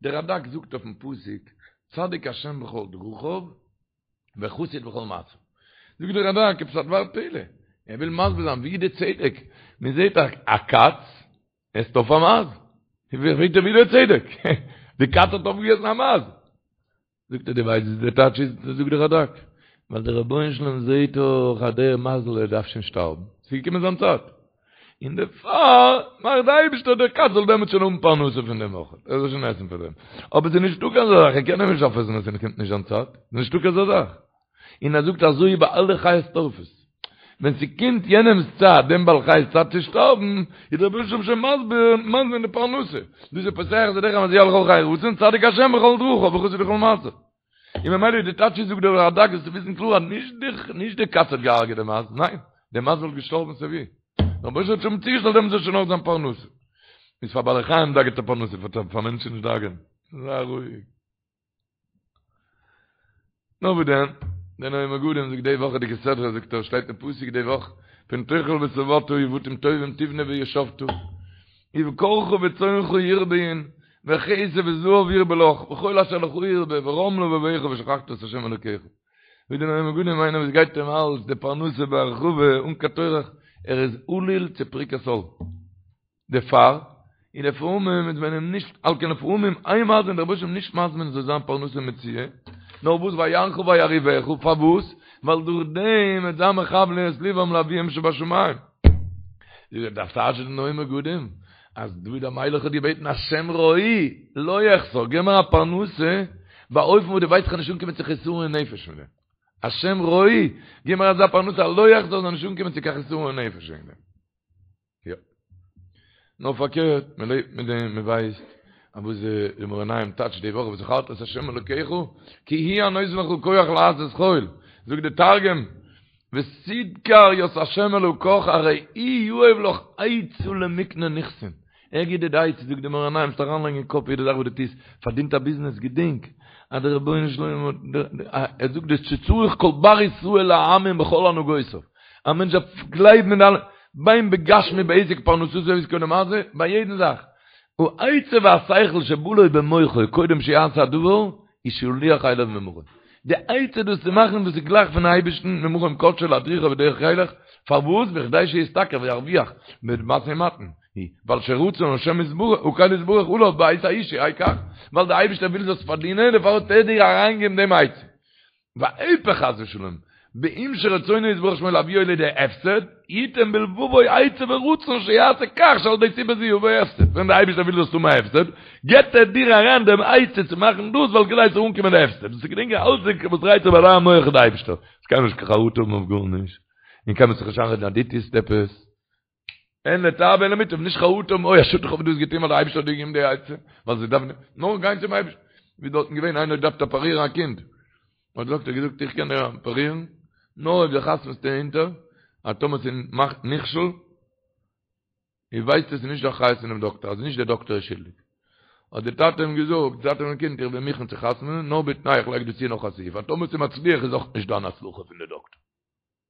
דער רדק זאגט אויפן פסוק, צדיק השם בכל דרכיו, וחסיד בכל מעשיו. זאגט דער רדק, עפעס א דבר פלא, ער וויל מסביר זיין ווי איז די צדק, מען זעט א קאץ עסט אויף א מייז, פרעגט ער ווי איז דער צדק, די קאץ האט אויפגעגעסן א מייז. זאגט ער דו ווייסט וואס דער טייטש איז, זאגט דער רדק, ווייל דער רבונו של עולם זעט דאך אז דער מייזל ער דארף שוין שטארבן, ס'איז געקומען זיין צייט, און דערפאר מאכט די אייבישטער דער קאץ זאל דעמאלטס שוין האבן פרנסה פון דעם אויך, ער זאל שוין עסן פון דעם. אבער ס'איז נישטא קיין אזא זאך, ער קען אים נישט אויפעסן ווען ס'קומט נישט זיין צייט, ס'איז נישטא קיין אזא זאך. און ער זאגט אזוי ביי אלע חיות טורפות, ווען ס'קומט יענעמ'ס צייט, דעם בעל חי'ס צייט צו שטארבן, איז דער רבונו של עולם שוין מסביר, מזמין די פרנסה. דאס איז פותח את ידך ומשביע לכל חי רצון, צדיק השם בכל דרכיו וחסיד בכל מעשיו. און ממילא איז די טייטש זאגט דער רדק זאלסטו וויסן קלאר אז נישט די נישט די קאץ האט געהארגעט די מייז, ניין, די מייז וואלט געשטארבן סיי ווי. דער רבונו של עולם האט שוין צוגעשטעלט דעם זאל שוין האבן זיין פרנסה. איז פאר בעלי חיים דאגה'ט ער פרנסה, פאר מענטשן נישט דאגה'ן. זיי רואיג. נאר וואס דען, דער נועם מגדים זאגט די וואכעדיגע סדרה זאגט ער שטייט אין פסוק די וואך פן תאכל ושבעת ובתים טובים תבנה וישבת ובקרך וצאנך ירביון וכסף וזהב ירבה לך וכל אשר לך ירבה ורם לבבך ושכחת את ה' אלוקיך ווי דער נועם מגדים איינער וואס גייט אים אלץ די פרנסה בהרחבה אן קיין טורח ער איז עלול צו פריקת עול. דערפאר, און לפעמים איז מען אים נישט, על כן לפעמים אין מזמין, דער רבוש"ע נישט מזמין זאל זיין פרנסה מצויה, נאר וואס ויענך וירעיבך, פארוואס? ווייל דורך דעם וועט זיין מכוון את לבם לאביהם שבשמים. דארף טייטשן די נועם מגדים, אז דוד המלך האט געבעטן השם רועי, לא אחסר, געב מיר א פרנסה, באופן וואס דו ווייסט כ'וועל נישט אנקומען צו חסרון נפש מיט דעם. השם רועי, געב מיר אזא פרנסה, לא אחסר זאל נישט אנקומען צו קיין חסרון נפש וועגן דעם. יא. נאר פארקערט, מען לעבט מיט דעם, מען ווייסט אז וואס די מאור עינים טייטשט די וואך וזכרת את ה' אלוקיך כי הוא הנותן לך כח לעשות חיל, זאגט די תרגום, ותדכר ית ה' אלקך ארי הוא יהב לך עצה למקנה נכסין, ער גיט דיר די עצה, זאגט די מאור עינים, זאלסט אריינלייגן אין קאפ יעדע זאך וואס דו טוסט, פארדינט א ביזנעס, געדענק אז דער רבונו של עולם האט, ער זאגט דאס שצריך כל בר ישראל להאמין בכל הנהגותיו. א מענטש דארף גלייבן אין אלע, בין בגשמי בעסק פרנסתו ועסקו למעשה, ביי יעדן זאך. העצה והשכל שבא לו במוחו קודם שיעשה הדבר, היא שלוח אליו ממרום. די עצה דאס צו מאכן דאס איז גלייך פון אייבערשטן ממרום קדשו להדריכו בדרך ילך, פארוואס? בכדי שישתכר וירוויח במשא ומתן, ווייל שרצון השם יתברך הקל יתברך עליו בעת ההיא שיהא כך, ווייל דער אייבערשטער וויל זאלסט פארדינען דערפאר האט ער דיר אריינגעגעבן דעם עצה. והיפך חס ושלום, באם שרצונו יתברך שמו להביאו לידי הפסד, יתן בלבבו עצה ורצון שיעשה כך שעל ידי סיבה זו יבוא הפסד, ווען דער אייבערשטער וויל זאלסט האבן א הפסד, געבט ער דיר אריין דעם עצה צו מאכן דאס ווייל כדי ס'זאל אנקומען די הפסד, דאס איז געדענקען אלץ וואס דרייט זיך ביי דיין מח איז די אייבערשטער, עס קען נישט קיין חרטה האבן אויף גארנישט, און קיינמאל זיך נישט איינרעדן אז דו טוסט עפעס. הן לטב והן למוטב, נישט חרטה האבן, אוי א שאד איך האב דאס געטון ווייל דער אייבערשטער האט דיר געגעבן די עצה, ווייל זיי דארפן נאר גיין צום אייבערשטן, ווי דארטן געווען איינער האט געדארפט אפערירן א קינד, האט דער דאקטער געזאגט איך קען דיר אפערירן, נאר אויב דו חתמ'סט אונטער אז טאמער ס'מאכט נכשל, איר ווייסט עס איז נישט די אחריות פונעם דאקטער, אז נישט דער דאקטער איז שולדיג. האט דער טאטע אים געזאגט, דער טאטע פונעם קינד, איך בין מוכן צו חתמ'נען, נאר בתנאי איך לייג דא צו נאך א סעיף, אז טאמער ס'איז מצליח איז אויך נישט דיין הצלחה פון די דאקטער.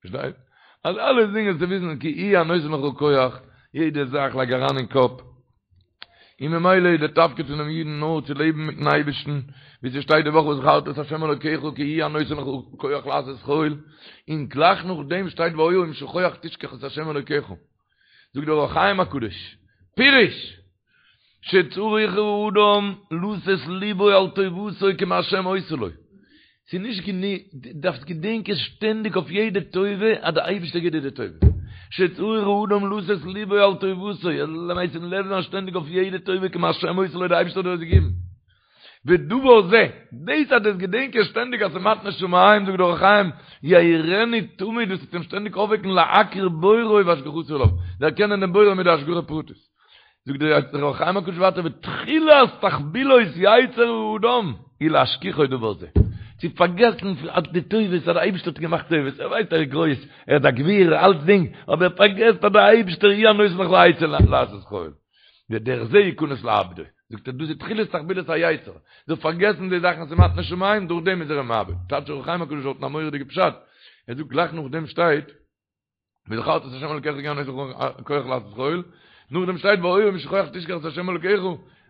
פארשטייט? אז אלע זינגען צו וויסן כי הוא הנותן לך כח, יעדע זאך לייג אריין אין קאפ, און ממילא איז דער תפקיד פונעם אידן נאר צו לעבן מיטן אייבערשטן, ווי ס'שטייט די וואך וזכרת את ה' אלוקיך כי הוא הנותן לך כח לעשות חיל, און גלייך נאכדעם שטייט והיה אם שכוח תשכח את ה' אלוקיך. זאגט דער אור החיים הקדוש, פירוש, שצריך האדם לתת ליבו על טובתו כמהשם עושה לו. ס'איז נישט גענוג, דו דארפסט געדענקען שטענדיג אויף יעדע טובה אז דער אייבערשטער גיט דיר די טובה. שצריך האדם לתת ליבו על טובתו, ער זאל משים לב זיין שטענדיג אויף יעדע טובה כמהשם עושה לו, דער אייבערשטער האט דיר עס געגעבן. ודבר זה, דאס אז דאס געדענקען שטענדיג אז ס'איז מתנת שמים, זאגט דער אור החיים, יעירנו תמיד, דאס וועט אים שטענדיג אויפוועקן להכיר בוראו והשגחתו עליו, דערקענען דעם בורא מיט די השגחה פרטית. זאגט דער אור החיים הקדוש ווייטער ותחילת תחבולות יצר האדם היא להשכיחו דבר זה, צו פארגעסן אז די טובות אז דער אייבערשטער האט געמאכט טובות, ער ווייסט ער איז גרויס, ער איז א גביר, אלצדינג, אבער ער פארגעסט אז דער אייבערשטער הוא הנותן לך עצה לעשות חיל, ודרך זה יכנס לאבדו. זאגט ער דאס איז תחילת תחבולות היצר, זאל פארגעסן די זאכן ס'איז מתנת שמים, דורך דעם איז ער אים מאבד. טייטש אור החיים הקדוש דארטן א מורא'דיגע פשט, ער זאגט גלייך נאכדעם שטייט, וזכרת את ה' אלקיך כי הוא הנותן לך כח לעשות חיל, נאכדעם שטייט והיה אם שכוח תשכח את ה' אלקיך,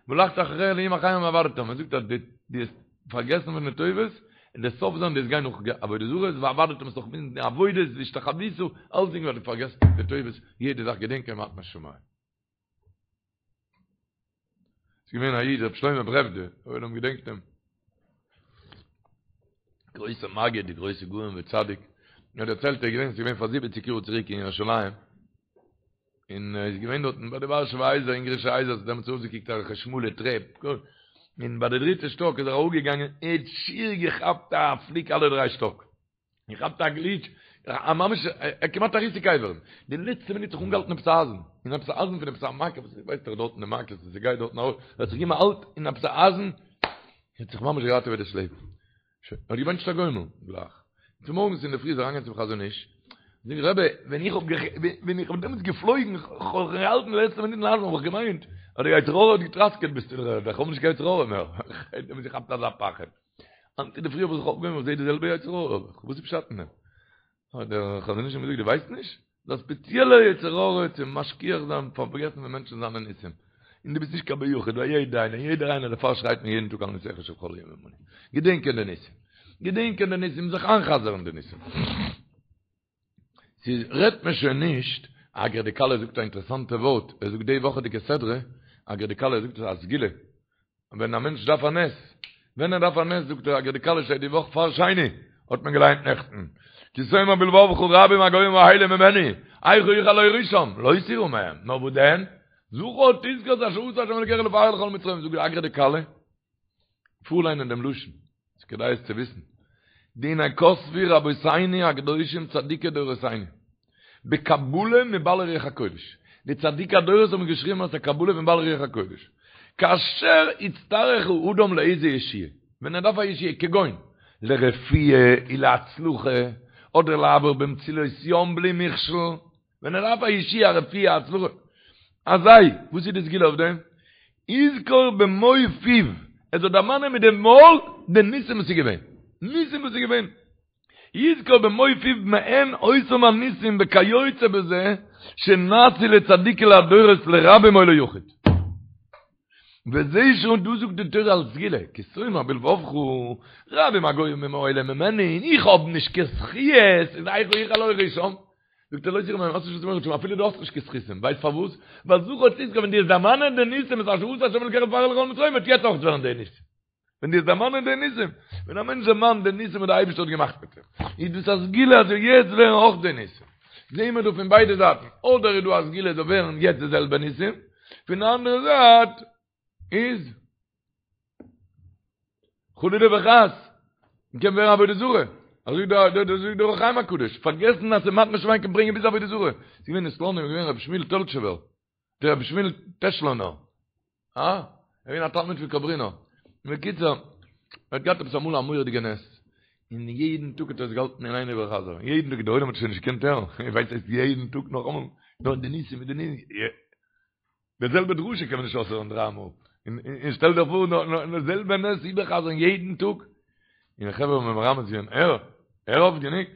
והלכת אחרי אלהים אחרים ועבדתם, ער זאגט אז דו האסט פארגעסן פון די טובות, און דער סוף זיין דו וועסט גיין נאך עבודה זרות, ועבדתם וועסט נאך די עבודות והשתחוית, אלסדינג ווייל דו פארגעסט די טובות, יעדע זאך געדענקען מתנת שמים. ס'איז געווען א איד ר' שלמה ברעוודע, דער עולם געדענקט אים. גרויסע מגיד, די גרויסע גאון וצדיק. ער האט דערציילט ער איז געווען, ס'איז געווען פאר זיבעציק יאר צוריק אין ירושלים. און ער איז געווען דארטן ביי די ווארשעווע הייזער, אונגערישע הייזער, ס'האט דעמאלטס אויסגעקוקט אזעלכע שמאלע טרעפ. און ביי די דריטע שטאק איז ער אראפגעגאנגען, ער האט שיער געכאפט א פליק אלע דריי שטאק. געכאפט א גליטש, א ממש, א כמעט א ריסוק אברים. די לעצטע מינוט זיך אנגעהאלטן עפעס א אייזן, אין עפעס א אייזן פון עפעס א מעקה, וואס ווייסט דאך דארטן די מעקות וואס ס'גייט דארטן ארויף, ער האט זיך געגעבן א האלט אין עפעס א אייזן, האט זיך ממש געראטעוועט דאס לעבן. שוין, ער האט געבענטשט א גומל, גלייך. צומארגנס אינדערפרי איז ער אריינגעגאנגען צום חזון איש, זאגט רבי, ווען איך האב ווען איך האב דעמאלטס געפלויגן, כ'האב זיך געהאלטן די לעצטע מינוט אין אייזן, האב איך געמיינט. האט דער יצר הרע האט געטראסקעט ביסט אין דר'ערד, איך האב נישט קיין יצר הרע מער, איך האב געכאפט אזא פחד. היינט אינדערפרי האב איך זיך אויפגעהויבן איך זעה די זעלבע יצר הרע האב איך, וואס איז פשט אין דעם? האט דער חזון איש אים געזאגט דו ווייסט נישט? ס'איז א ספעציעלער יצר הרע צו משכיח זיין פארגעסן פון מענטשן זיינע ניסים. און דו ביסט נישט קיין בן יחיד, ווייל יעדער איינער, יעדער איינער דערפאר שרייט מען יעדן טאג על נסיך שבכל יום עמנו. געדענקען די ניסים. געדענקען די ניסים, זיך איינ'חזר'ן די ניסים. ס'איז רעדט מען שוין נישט, אגרא דכלה זאגט א אינטערעסאנטע ווארט, ער זאגט די וואכעדיגע סדרה, אגרא דכלה זאגט עס א סגולה, ווען א מענטש דארף א נס, ווען ער דארף א נס זאגט דער אגרא דכלה שטייט די וואך פאר שני, האט מען געליינט נעכטן, כי תאמר בלבבך רבים הגוים האלה ממני, איכה אוכל להורישם, לא תירא מהם, נאר וואס דען? זכור תזכור את אשר עשה ה' אלוקיך לפרעה ולכל מצרים, זאגט דער אגרא דכלה, פארליינען דעם לשון, ס'איז כדאי עס צו וויסן. והנה כתבו רבותינו הקדושים צדיקי דורותינו, בקבלה מבעלי רוח הקודש. די צדיקי הדורות האבן געשריבן אלס א קבלה פון בעלי רוח הקודש. כאשר יצטרך האדם לאיזה ישועה, ווען ער דארף א ישועה, כגון, לרפואה ולהצלחה, אדער לעבור במצולות ים בלי מכשול, ווען ער דארף א ישועה, א רפואה, א הצלחה, אזי, וואס איז די סגולה אויף דעם? יזכור במו פיו, ער זאל דערמאנען מיט די מויל די ניסים וואס איז געווען, ניסים וואס איז געווען, יזכור במו פיו מעין אותם הניסים וכיוצא בזה שנעשו לצדיקי הדורות לרבים או ליחיד. וזה שוין דא זאגט די תורה אלס סגולה, כי תאמר בלבבך, רבים הגוים האלה ממני, און איך האב נישט קיין זכיות, איז איכה אוכל להורישם. זאגט ער לא תירא מהם, האסט נישט וואס צו מורא צו האבן אפילו דו האסט נישט קיין זכותים, ווייסט פארוואס? ווייל זכור תזכור ווען דו וועסט דערמאנען די ניסים את אשר עשה השם אלוקיך לפרעה ולכל מצרים וועט יעצט אויך ווערן די ניסים. ווען דו וועסט דערמאנען די ניסים, ווען א מענטש דערמאנט די ניסים וואס דער אייבערשטער האט געמאכט מיט אים, איז דאס א סגולה אז זאל יעצט ווערן אויך די ניסים. זעהן מיר דא פון ביידע זייטן, אדער איז דא א סגולה זאל ווערן יעצט די זעלבע ניסים, פון די אנדערע זייט איז חלילה וחס, מ'קען ווערן עבודה זרה. אזוי דער דער זאגט דער אור החיים הקדוש, פארגעסן אז ס'מתנה שמים קען ברענגען ביז עבודה זרה. ס'איז געווען אין סלאנים איז געווען רבי שמואל טעלטשעווער, דער רבי שמואל טעשלאנער, אה? ער איז געווען א תלמיד פון קאברינער. בקיצור, ער האט געהאט עפעס אמאל א מורא'דיגע נס, און יעדן טאג האט ער עס געהאלטן אין איין איבערחזר'ן, יעדן טאג, דער עולם האט שוין נישט געקענט הערן, איר ווייסט ס'הייסט יעדן טאג נאכאמאל, נאר די ניסים מיט די ניסים. די זעלבע דרשה קען מען נישט אויסהערן דריי מאל. און שטעל דיך פאר נאר די זעלבע נס איבערחזר'ן יעדן טאג. און די חברה האבן מרמז געווען, הער, הער אויף גענוג.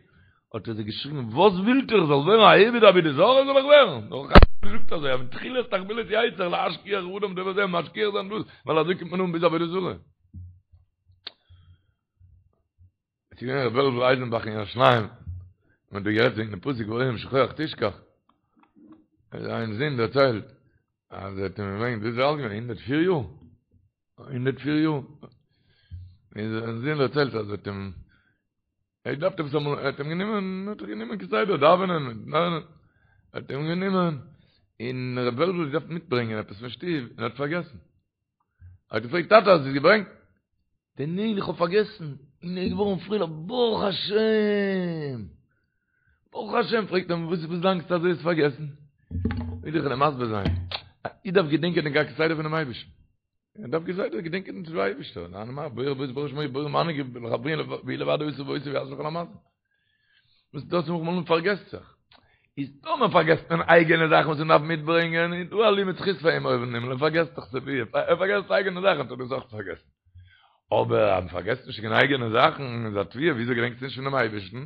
האט ער זיי געשריגן, וואס ווילט איר, איך זאל ווערן א עובד עבודה זרה זאל איך ווערן? דער אור החיים זאגט אזוי, אז מתחילת תחבולות יצר להשכיח אדם דבר זה, משכיח זיין דאס, ווייל אזוי קומט מען אן ביז עבודה זרה. עס איז געווען ר' וועלוול אייזנבאך אין ירושלים, מען האט דא גערעדט וועגן דעם פסוק והיה אם שכוח תשכח, זיין זון דערציילט אז ער האט אים געברענגט, ווי איז ער אלט געווען? 104 יאר? 104 יאר. און זיין זון דערציילט אז ער האט אים, ער האט געדארפט עפעס אמאל, ער האט אים גענומען, ער האט זיך גענומען כסדר דאווענען, דאווענען, ער האט אים גענומען, און ר' וועלוול האט געדארפט מיטברענגען עפעס פון שטוב, און ער האט פארגעסן. ער האט געפרעגט טאטע האסט עס געברענגט? זאגט ער ניין איך האב פארגעסן, און ער איז געווארן פרייליך ברוך השם! ברוך השם! פרעגט אים וואס וואס דאנקסטו אז דו האסט פארגעסן? וויל איך דיר מסביר זיין, א איד דארף געדענקען דעם כסדר פונעם אייבערשטן, ער דארף כסדר געדענקען דעם אייבערשטער, נאר בורא יתברך שמו בורא מנהיג לחברי והוא לבדו עשה ועושה ויעשה לכל המעשים. וואס דאס מאכט מען פארגעסט זיך. איז טאמער פארגעסט מען אייגענע זאכן וואס מען דארף מיטברענגען, איז דא א לימוד זכות פאר אים אויבן אין הימל, ער פארגעסט דאך סייווי, ער פארגעסט אייגענע זאכן האט ער דאס אויך פארגעסן. אבער אז מען פארגעסט נישט קיין אייגענע זאכן, איז א תביעה, וויאזוי געדענקסטו נישט פונעם אייבערשטן?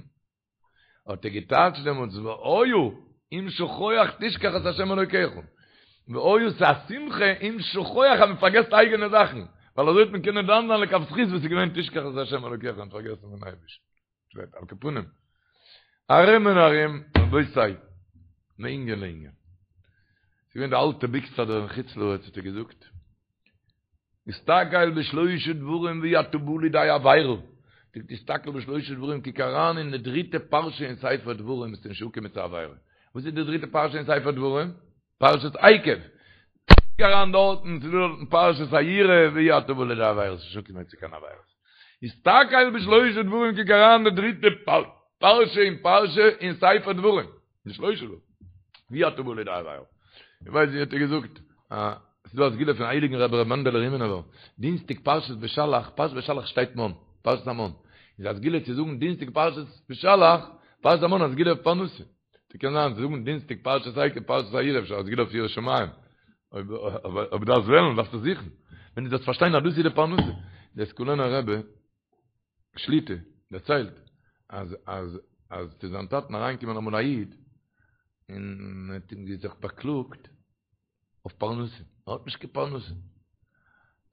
האט ער געטייטשט דעמאלטס והיה אם שכוח תשכח את ה' אלוקיך. והיה ס'איז א שמחה אם שכוח אז מען פארגעסט אייגענע זאכן, ווייל אזוי וועט מען קענען דן זיין לכף זכות וואס איז געווען תשכח את ה' אלוקיך און פארגעסן פון אייבערשטן. שטייט על כל פנים. ארום און ארום, רבותי, מענין לענין. ס'איז געווען די אלטע ביקסאדער אין חוץ לארץ האט ער געזאגט, הסתכל בשלושה דברים ואי אתה בא לידי עבירה. זאגט הסתכל בשלושה דברים, קוק אריין אין די דריטע פרשה אין ספר דברים, וועסטו נישט אנקומען צו עבירה. וואס איז די דריטע פרשה אין ספר דברים? פרשת עקב, קוק אריין דארטן, ס'איז דא דארטן פרשת היראה, ואי אתה בא לידי עבירות, נישט אנקומען צו קיין עבירות. הסתכל בשלושה דברים, קוק אריין די דריטע פרשה אין פרשה אין ספר דברים, בשלושה דברים, ואי אתה בא לידי עבירות. איך ווייס ווי האט ער געזאגט, ס'איז דא א סגולה פון הייליגן רבי ר' מענדעלע רימינובער, דינסטאג פרשת בשלח, פרשת בשלח שטייט מן, פרשת המן, איז א סגולה צו זאגן דינסטאג פרשת בשלח, פרשת המן א סגולה אויף פרנסה. ס'קען זיין זאגן דינסטאג פרשת עקב פרשת היראה אפשר א סגולה אויף יראת שמים. אויב דארפסט וועלן, דארפסטו זוכן. ווען דו זאלסט פארשטיין אז דאס איז די פרנסה. דער סקולענער רבי שליטא דערציילט אז אז אז צו זיין טאטן אריינגעקומען אמאל א איד און האט אים זיך באקלאגט אויף פרנסה, ער האט נישט קיין פרנסה.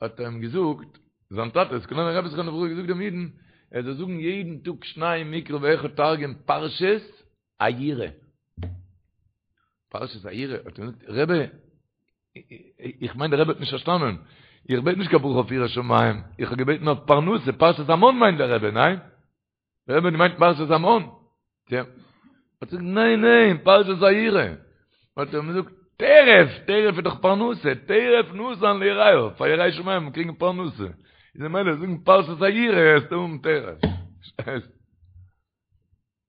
האט ער אים געזאגט, זיין טאטע, סקולענער רבי זכרונו לברכה, געזאגט דעם אידן, ער זאל זאגן יעדן טאג שנים מקרא ואחד תרגום פרשת היראה. פרשת היראה, האט ער געזאגט, רבי, איך מיין דער רבי האט נישט פארשטאנען, איך בעט נישט קיין ברכה אויף יראת שמים, איך האב געבעטן אויף פרנסה, פרשת המן מיינט דער רבי, ניין? דער רבי האט געמיינט פרשת המן. יא. האט ער געזאגט, ניין, ניין, פרשת היראה. האט ער אים געזאגט, טרף, טרף איז דאך פרנסה, טרף נתן ליראיו, פאר יראי שמים קריגן פרנסה. איז ממילא זאגן פרשת היראה, וועסטו האבן טרף. פארשטייסט?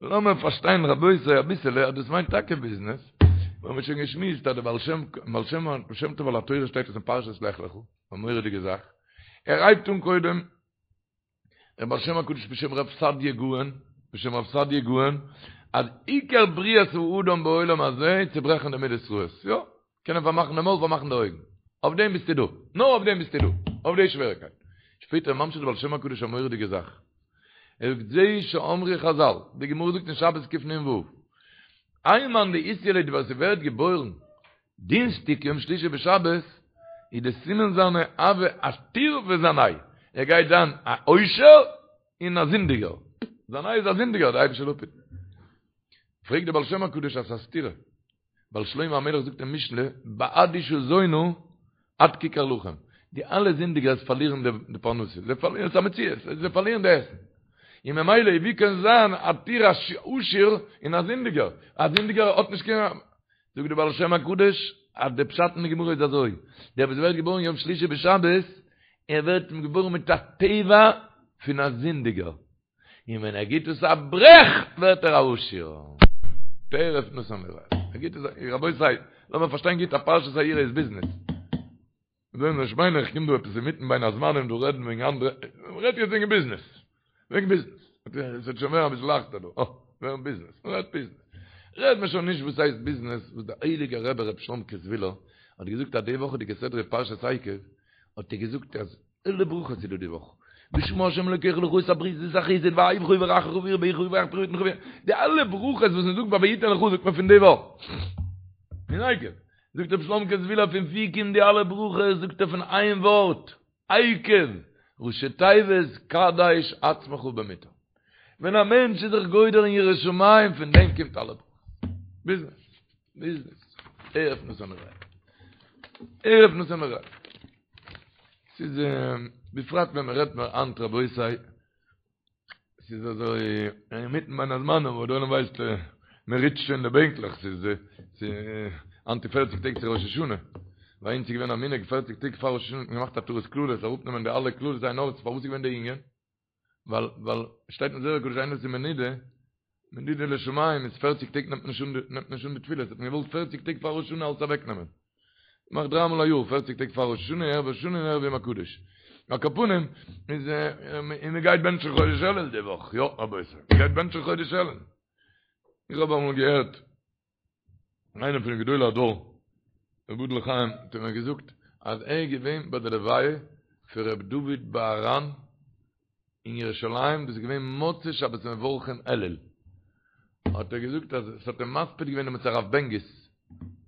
לאמיר פארשטיין רבותי אביסעלע אז דאס מיינט טאקע ביזנעס. מיר האבן שוין געשמועסט אז דער בעל שם, בעל שם טוב על התורה שטייט עס אין פרשת לך לך, א מורא'דיגע זאך. ער הייבט אן קודם דער בעל שם הקדוש בשם רב סעדיה גאון, בשם רב סעדיה גאון, אז עיקר בריאת האדם בעולם הזה איז צו ברעכן די מידות רעות, יא, קענען פארמאכן די מויל פארמאכן די אויגן, אויף דעם ביסטו דא, נאר אויף דעם ביסטו דא, אויף די שוועריקייט. שפעטער ממשיך דער בעל שם הקדוש א מורא'דיגע זאך, ער זאגט זה שאמרו חזל, די גמרא זאגט אין שבת קנ"ו, האי מאן דאיתיליד ליה ווער ס'ווערט געבוירן דינסטיג יום שלישי בשבת איז די סימן זיינע הוי עתיר וזנאי, ער גייט זיין א עושר און א זינדיגער, זנאי איז א זינדיגער, די אייבישטער זאל אפהיטן. פרעגט דער בעל שם הקדוש אז ס'איז א סתירה, ווייל שלמה המלך זאגט אין משלי בעד אשה זונה עד כיכר לחם, די אלע זינדיגערס פארלירן די פרנסה, זיי פארלירן, ס'איז א מציאות, זיי פארלירן די עסן, און ממילא ווי קען זיין עתיר א עשיר און א זינדיגער, א זינדיגער האט נישט קיין. זאגט דער בעל שם הקדוש אז די פשט אין די גמרא איז אזוי, דער וואס ווערט געבוירן יום שלישי בשבת, ער ווערט געבוירן מיט א טבע פון א זינדיגער, און ווען ער גיט עס א ברעך ווערט ער א עשיר. טרף נתן ליראיו. ער גיט עס א, רבותי, לאמיר פארשטיין גוט אז פרשת היראה איז ביזנעס. זאל נישט מיינען איך קום דא עפעס אינמיטן בין הזמנים דא רעדן וועגן אנדערע, מ'רעדט יעצט וועגן ביזנעס, וועגן ביזנעס, עס וועט שוין ווערן אביסל לייכטער דא, אה, וועגן ביזנעס, מ'רעדט ביזנעס, רעדט מען שוין נישט וואס הייסט ביזנעס, וואס דער הייליגער רבי ר' שלומ'קע זוויהלער האט געזאגט אז די וואכעדיגע סדרה פרשת עקב, האט ער געזאגט אז אלע ברכות איז דא די וואך, ושמר ה' אלוקיך לך את הברית ואת החסד ויאהבך ויברכך וירבך ויפרח פרי בטנך, די אלע ברכות וואס מ'זאגט ביי ויתן לך זאגט מען פון די וואך, פון עקב. זאגט רבי שלומ'קע זוויהלער פון ווי קומט די אלע ברכות, זאגט ער פון איין ווארט, עקב, ראשי תיבות קדש עצמך במותר. ווען א מענטש איז זיך גודר אין יראת שמים פון דעם קומט אלע ברכות. ביזנעס, ביזנעס, טרף נתן ליראיו. טרף נתן ליראיו. ס'איז בפרט ווען מ'רעדט נאר היינט רבותי, ס'איז אזוי אינמיטן בין הזמנים וואו דער עולם ווייסט מען ריטשט שוין די בענקלעך ס'איז היינט איז פערציג טעג צו ראש השנה ביי אונז איז געווען א מנהג פערציג טעג פאר ראש השנה האט מען געמאכט התרת קללות אראפנעמען די אלע קללות עין הרע'ס פארוואס איז געווען די ענין ווייל ווייל שטייט אין זוהר הקדוש איינער וואס איז מנודה מנודה לשמים איז פערציג טעג נעמט מען נישט אן נעמט מען נישט אן די תפילות האט מען געוואלט פערציג טעג פאר ראש השנה אלס אוועקנעמען מאכט דריי מאל א יאר, פערציג טעג פאר ראש השנה, ערב ראש השנה און ערב יום הקדוש. על כל פנים, איז און מען גייט בענטשן חודש אלול די וואך, יא רבותי, מען גייט בענטשן חודש אלול. איך האב אמאל געהערט איינער פון די גדולי הדור, יבדל לחיים, האט ער מיר געזאגט אז ער איז געווען ביי די לוויה פון ר' דוד בהר"ן אין ירושלים, דאס איז געווען מוצאי שבת מברכים אלול, האט ער געזאגט אז עס האט אים מספיד געווען דעמאלטס הרב בענגיס,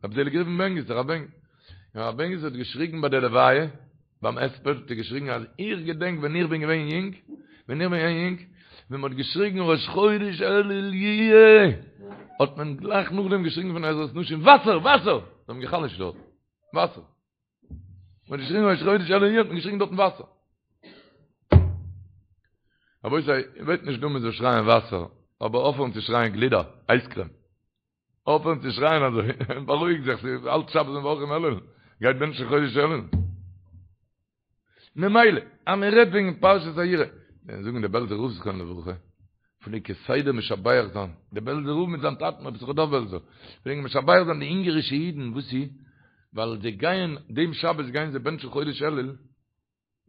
רבי זעליג ראובן בענגיס, הרב בענגיס, און הרב בענגיס האט געשריגן ביי די לוויה, ביים הספד האט ער געשריגן אז איך געדענק ווען איך בין געווען יונג, ווען איך בין געווען יונג, ווען מען האט געשריגן ראש חודש אלול יהיה, האט מען גלייך נאכדעם געשריגן פון עזרת נשים וואסער! וואסער! זיי האבן גע'חלש'ט דארט, וואסער! מ'האט געשריגן ראש חודש אלול יהיה האט מען געשריגן דארטן וואסער. רבותי, איך בעט נישט דא מ'זאל שרייען וואסער, אבער אויפהערן צו שרייען גלידה, אייזקרעם. אויפהערן צו שרייען אזוי, בארואיג זיך, ס'איז אלץ שבת מברכים אלול, גייט בענטשן חודש אלול. ממילא, אז מען רעדט וועגן פרשת היראה, ווען זאגן די בעלזער רב זכרונו לברכה, פלעגט כסדר משבח זיין, די בעלזער רב מיט זיין טאטן רבי יששכר דוב בעלזער, פלעגן משבח זיין די אונגערישע אידן, וואס איז? ווייל זיי גייען, דעם שבת גייען זיי בענטשן חודש אלול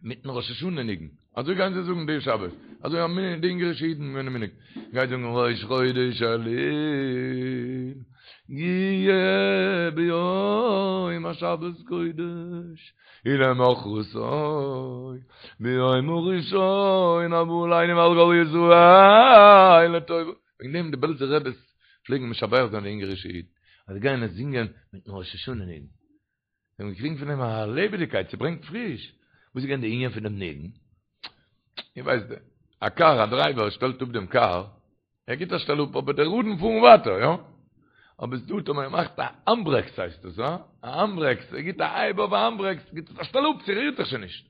מיטן ראש השנה ניגון, אזוי גייען זיי זאגן די שבת, אזוי א מנהג, די אונגערישע אידן געווען א מנהג, גייט זאגן ראש חודש אלול. יהיה ביום השבת קודש ולמחרתו ביום הראשון הבא עלינו ועל כל ישראל לטובה. וועגן דעם די בעלזער רעבעס פלעגן משבח זיין די אונגערישע אידן אז זיי גייען עס זינגען מיטן ראש השנה ניגון. זיי האבן געקריגן פון דעם א לעבעדיגקייט, ס'ברענגט פריש. וואס איז געווען די ענין פון דעם ניגון? איר ווייסט, א קאר, א דרייווער שטעלט אפ דעם קאר, ער גיט א שטעל אפ, אבער די ראדן פארן ווייטער, יא? אבער ס'דא טאמער ער מאכט א האנדברעקס הייסט עס, הא? א האנדברעקס, ער גיט א הייב אויף א האנדברעקס, גיט עס א שטעל אפ, ס'רירט זיך שוין נישט.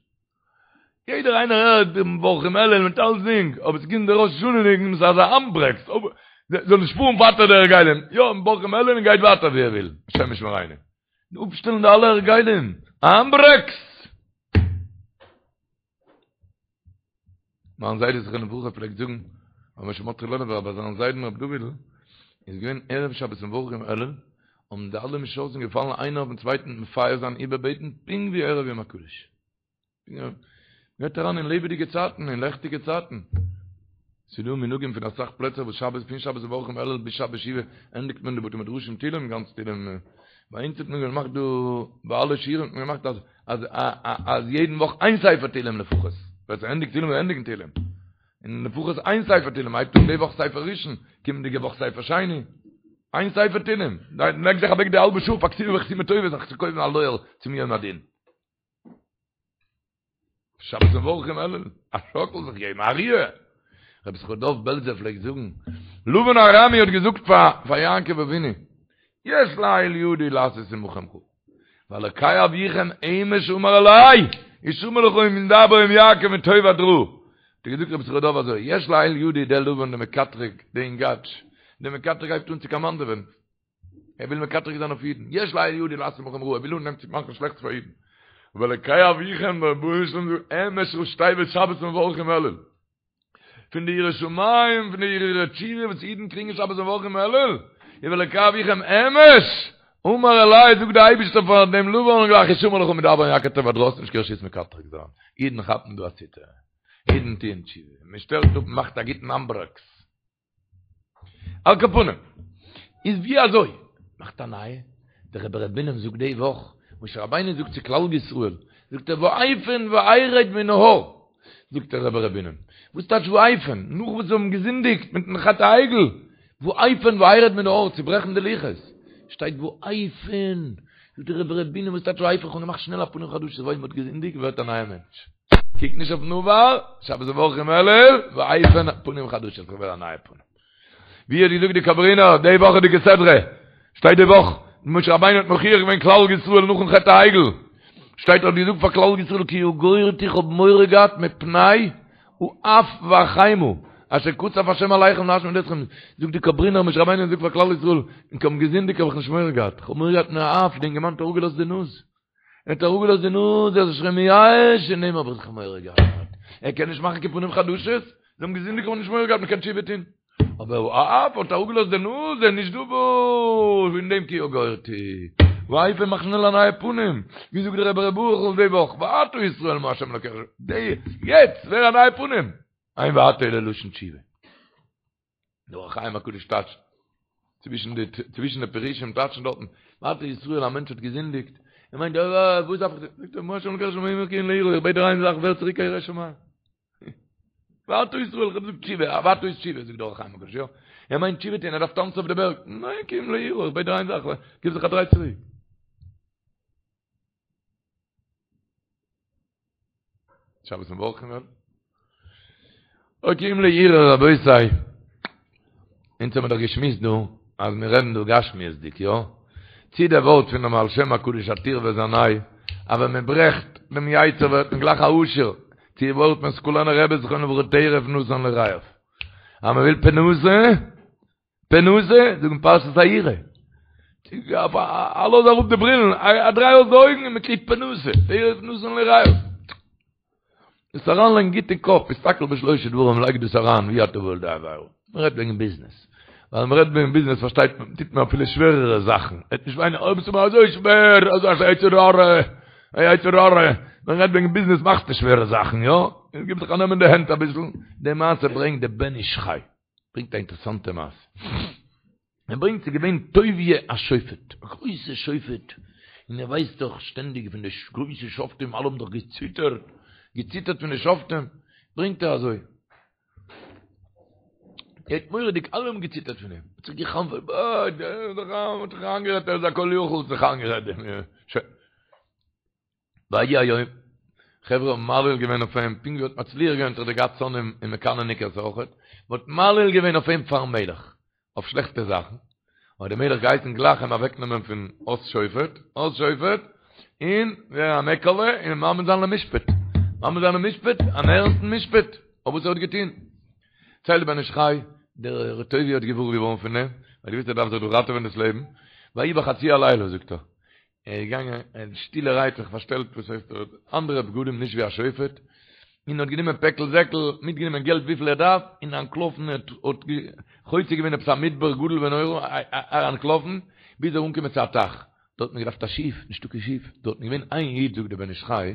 יעדער איינער הערט דעם מברכים אלול מיט אלסדינג, אבער ס'קומט דער ראש השנה ניגון, ס'איז אזא האנדברעקס, זאל נישט פארן ווייטער די הרגלים, יא, מברכים אלול און גייט ווייטער ווי ער וויל, השם ישמרינו. אפשטעלן די אלע הרגלים, א האנדברעקס! מיין זיידע זכרונו לברכה פלעגט זאגן, רבי משה מרדכי לעלובער ביי זיין זיידן רבי דוד'ל איז געווען ערב שבת מברכים אלול, האבן די אלע משרתים געפאלן איינער אויפן צווייטן מפייס זיין איבערבעטן פונקט ווי ערב יום הקדוש. גייט אריין אין לעבעדיגע צייטן, אין לעכטיגע צייטן. ס'איז דא מנהגים פון אסאך פלעצער וואס שבת פון שבת מברכים אלול ביז שבת שובה ענדיגט מען די בתי מדרשים תהילים גאנץ תהילים. ביי אונז האט מען געמאכט דא ביי אלע שיעורים האט מען געמאכט אז אז אז יעדן וואך איין ספר תהילים לפחות. ווער ס'ענדיגט תהילים זאל ענדיגן תהילים. און לפחות איין ספר תהילים הייבט אן די וואך ספר ראשון, קומענדיגע וואך ספר שני. איין ספר תהילים. לייג זיך אוועק די האלבע שעה פאר כתיבה וחתימה טובה זיך צו קויפן א לויער צום יום הדין. שבת מברכים אלול, א שאקל זיך געבן, א ריר. רבי ישכר דוב בעלזער פלעגט זאגן, לבן הארמי האט געזאגט פאר פאר יעקב אבינו, יש לאל ידי לעשות עמכם רעה, ואלקי אביכם אמש אמר אלי, השמר לך מדבר עם יעקב מטוב עד רע. האט ער געזאגט רבי ישכר דוב אזוי, יש לאל ידי דער לבן דער מקטרג, דער אינגאטש, דער מקטרג הייבט אן צו קאמאנדעווען, ער וויל מקטרג זיין אויף אידן, יש לאל ידי לעשות עמכם רעה, ער וויל אנהייבן צו מאכן שלעכטס פאר אידן. ואלקי אביכם דער רבונו של עולם זאגט אמש ראשי תיבות שבת מברכים אלול. פון די יראת שמים, פון די הרהורי תשובה וואס אידן קריגן שבת מברכים אלול, איז ואלקי אביכם אמש, אמר אלי זאגט דער אייבערשטער פאר דעם לבן גלייך השמר לך מדבר עם יעקב טוב עד רע, האסט נישט קיין רשות מקטרג זיין, אידן כאפן דא א ציטער, אידן טוען תשובה, מען שטעלט אפ, מען מאכט א גוטן האנדברעקס. על כל פנים, איז ווי אזוי מאכט א נייע? דער רבי ר' בונם זאגט די וואך, משה רבינו זאגט צו כלל ישראל, זאגט ער ואפן וארד מן ההר, זאגט דער רבי ר' בונם, וואס טייטש ואפן? נאך וואס זיי האבן געזינדיגט מיטן חטא העגל, ואפן וארד מן ההר, צוברעכן די לוחות, שטייט ואפן, זאגט דער רבי ר' בונם וואס טייטש ואפן? כ'האב געמאכט שנעל א פנים חדשות, ווייל מ'האט געזינדיגט ווערט א נייער מענטש. קוק נישט אויפן עבר, שבת מברכים אלול, ואפן פנים חדשות, איך ווער א נייע פנים. ווי האט געזאגט די קאברינער די וואכעדיגע סדרה, שטייט די וואך, משה רבינו האט מוכיח געווען כלל ישראל נאכן חטא העגל, שטייט ער האט געזאגט פאר כלל ישראל כי יגורתי איך האב מורא געהאט מפני האף והחימה אשר קצף השם עליכם להשמיד אתכם, זאגט די קאברינער משה רבינו האט געזאגט פאר כלל ישראל, ענק האבן געזינדיגט האב איך נישט מורא געהאט, איך האב מורא געהאט מהאף, די אינגערמאן האט אראפגעלאזט די נאז. ער האט אראפגעלאזט די נאז, ער איז שוין מייאש, פון דעם האב איך מורא געהאט. ער קען נישט מאכן קיין פנים חדשות, זיי האבן געזינדיגט האבן נישט מורא געהאט, מען קען תשובה טון. אבער האף האט אראפגעלאזט די נאז, ער איז נישט דא וואס, פון דעם כי יגורתי. ואפן מאך שנעל א נייע פנים, ווי זאגט דער רבי ר' ברוכ'ל די וואך, ועתה ישראל מה ה' אלקיך, די, יעצט, ווער א נייע פנים. אין ועתה אלא לשון תשובה. דער אור החיים הקדוש טייטשט, צווישן די צווישן די פירושים טייטשן דארטן, ועתה ישראל א מענטש האט געזינדיגט, ער מיינט אה וואס דארף איך, זאגט ער מה ה' אלקיך שואל מעמך כי אם ליראה, איך בעט דיר איין זאך ווער צוריק א ירא שמים. ועתה ישראל, איך האב געזאגט תשובה, ועתה איז תשובה, זאגט דער אור החיים הקדוש, יא, ער מיינט תשובה טון, ער דארף טאנצן אויף די בערג, ניין כי אם ליראה, איך בעט דיר איין זאך, גיב זיך א דריי צוריק. שבת מברכים אלול. אוי כי אם ליראה רבותי. אונז האבן דאך געשמועסט דא אז מיר רעדן דא גשמיות'דיג, יא? צי דער ווארט פון דעם בעל שם הקדוש הטור וזנאי, אז ווען מען ברעכט דעם יצר ווערט מען גלייך א עשיר, צי די ווארט פון סקולענער רבי זכרונו לברכה טרף נתן ליראיו. אז מען וויל פרנסה, פרנסה, זאגן פרשת היראה. א לאז אראפ די ברילן, א דריי אויס די אויגן און מען קריגט פרנסה, טרף נתן ליראיו. דאס אריינלייגן גוט אין קאפ, הסתכל בשלושה דברים, לייג דאס אריין ואי אתה בא לידי עבירה. מען רעדט וועגן ביזנעס. ווייל מען רעדט וועגן ביזנעס פארשטייט מען, טוט מען אפילו שווערערע זאכן. עט נישט וויינען, אוי ביסטו מיר אזוי שווער, אזא יצר הרע, א יצר הרע. מען רעדט וועגן ביזנעס מאכסטו שווערע זאכן, יא? גיב זיך א נעם אין די הענט אביסל. די מעשה ברענגט די בן איש חי. ברענגט א אינטערעסאנטע מעשה. ער ברענגט ס'איז געווען טוביה השופט, א גרויסע שופט, און ער ווייסט דאך שטענדיג פון די גרויסע שופטים, אלע האבן דאך געציטערט, געציטערט פון די שופטים, ברענגט ער אזוי, ער האט מורא'דיג, אלע האבן געציטערט פון אים, האט זיך גע'חנפ'עט, אה, דער איז דאך א, האט זיך איינגערעדט ער איז א כל יכול, האט זיך איינגערעדט, שוין. ויהי היום, חברה האבן מעליל געווען אויף אים, פונקט ווי ער האט מצליח געווען האט ער געהאט שונאים און מקנא'ניקעס אויכעט, מען האט מעליל געווען אויף אים פארן מלך, אויף שלעכטע זאכן, האט דער מלך געהייסן גלייך אים אוועקנעמען פון אויס שופט, אויס שופט, און ווערן א מעקעלע און מעמיד זיין למשפט, מעמיד זיין למשפט, אן ערנסטן משפט, אויף וואס ער האט געטון. ציילט דער בן איש חי, דער ר' טוביה האט געוואר געווארן פון דעם, ווייל ער האט געוואוסט ער דארף זיך דא ראטעווען דאס לעבן, ויהי בחצי הלילה, זאגט ער, ער איז געגאנגען ער האט שטילערהייט זיך פארשטעלט וואס הייסט ער האט אנדערע בגדים נישט ווי א שופט, און האט גענומען פעקל זעקל, מיטגענומען געלט וויפיל ער דארף, און אנטלאפן ער האט חוצה געווען עפעס א מדבר גדול ונורא, ער אנטלאפן ביז ער אנגעקומען צו א טייך, דארט האט מען געדארפט א שיף, נישטא קיין שיף, דארט איז געווען איין איד זאגט דער בן איש חי,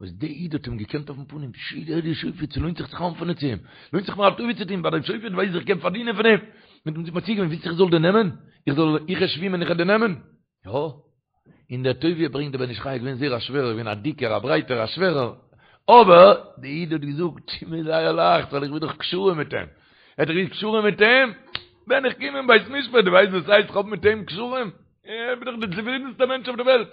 וואס דער איד האט אים געקענט אויפן פנים, פשי דער איז שופט, ס'לוינט זיך צו חנפ'ענען צו אים, לוינט זיך מיר א טובה צו טון ביי דעם שופט ווייס איך קען פארדינען פון אים, מיט אים זיך מציע געווען, ווילסט איך זאל דיר נעמען? איך זאל איך שווימען איך וועל דיר נעמען? יא, און דער טוביה ברענגט דער בן איש חי איז געווען זייער א שווערער, געווען א דיקער, א ברייטער, א שווערער, אבער דער איד האט געזאגט, ס'איז מיר זייער לייכט, ווייל איך בין דאך קשרים מיט אים, ער האט דאך געהאט קשרים מיט אים, ווען איך קום אין בית משפט, דו ווייסט וואס הייסט איך האב מיט אים קשרים? איך בין דאך דער צופרידנסטער מענטש אויף דער וועלט.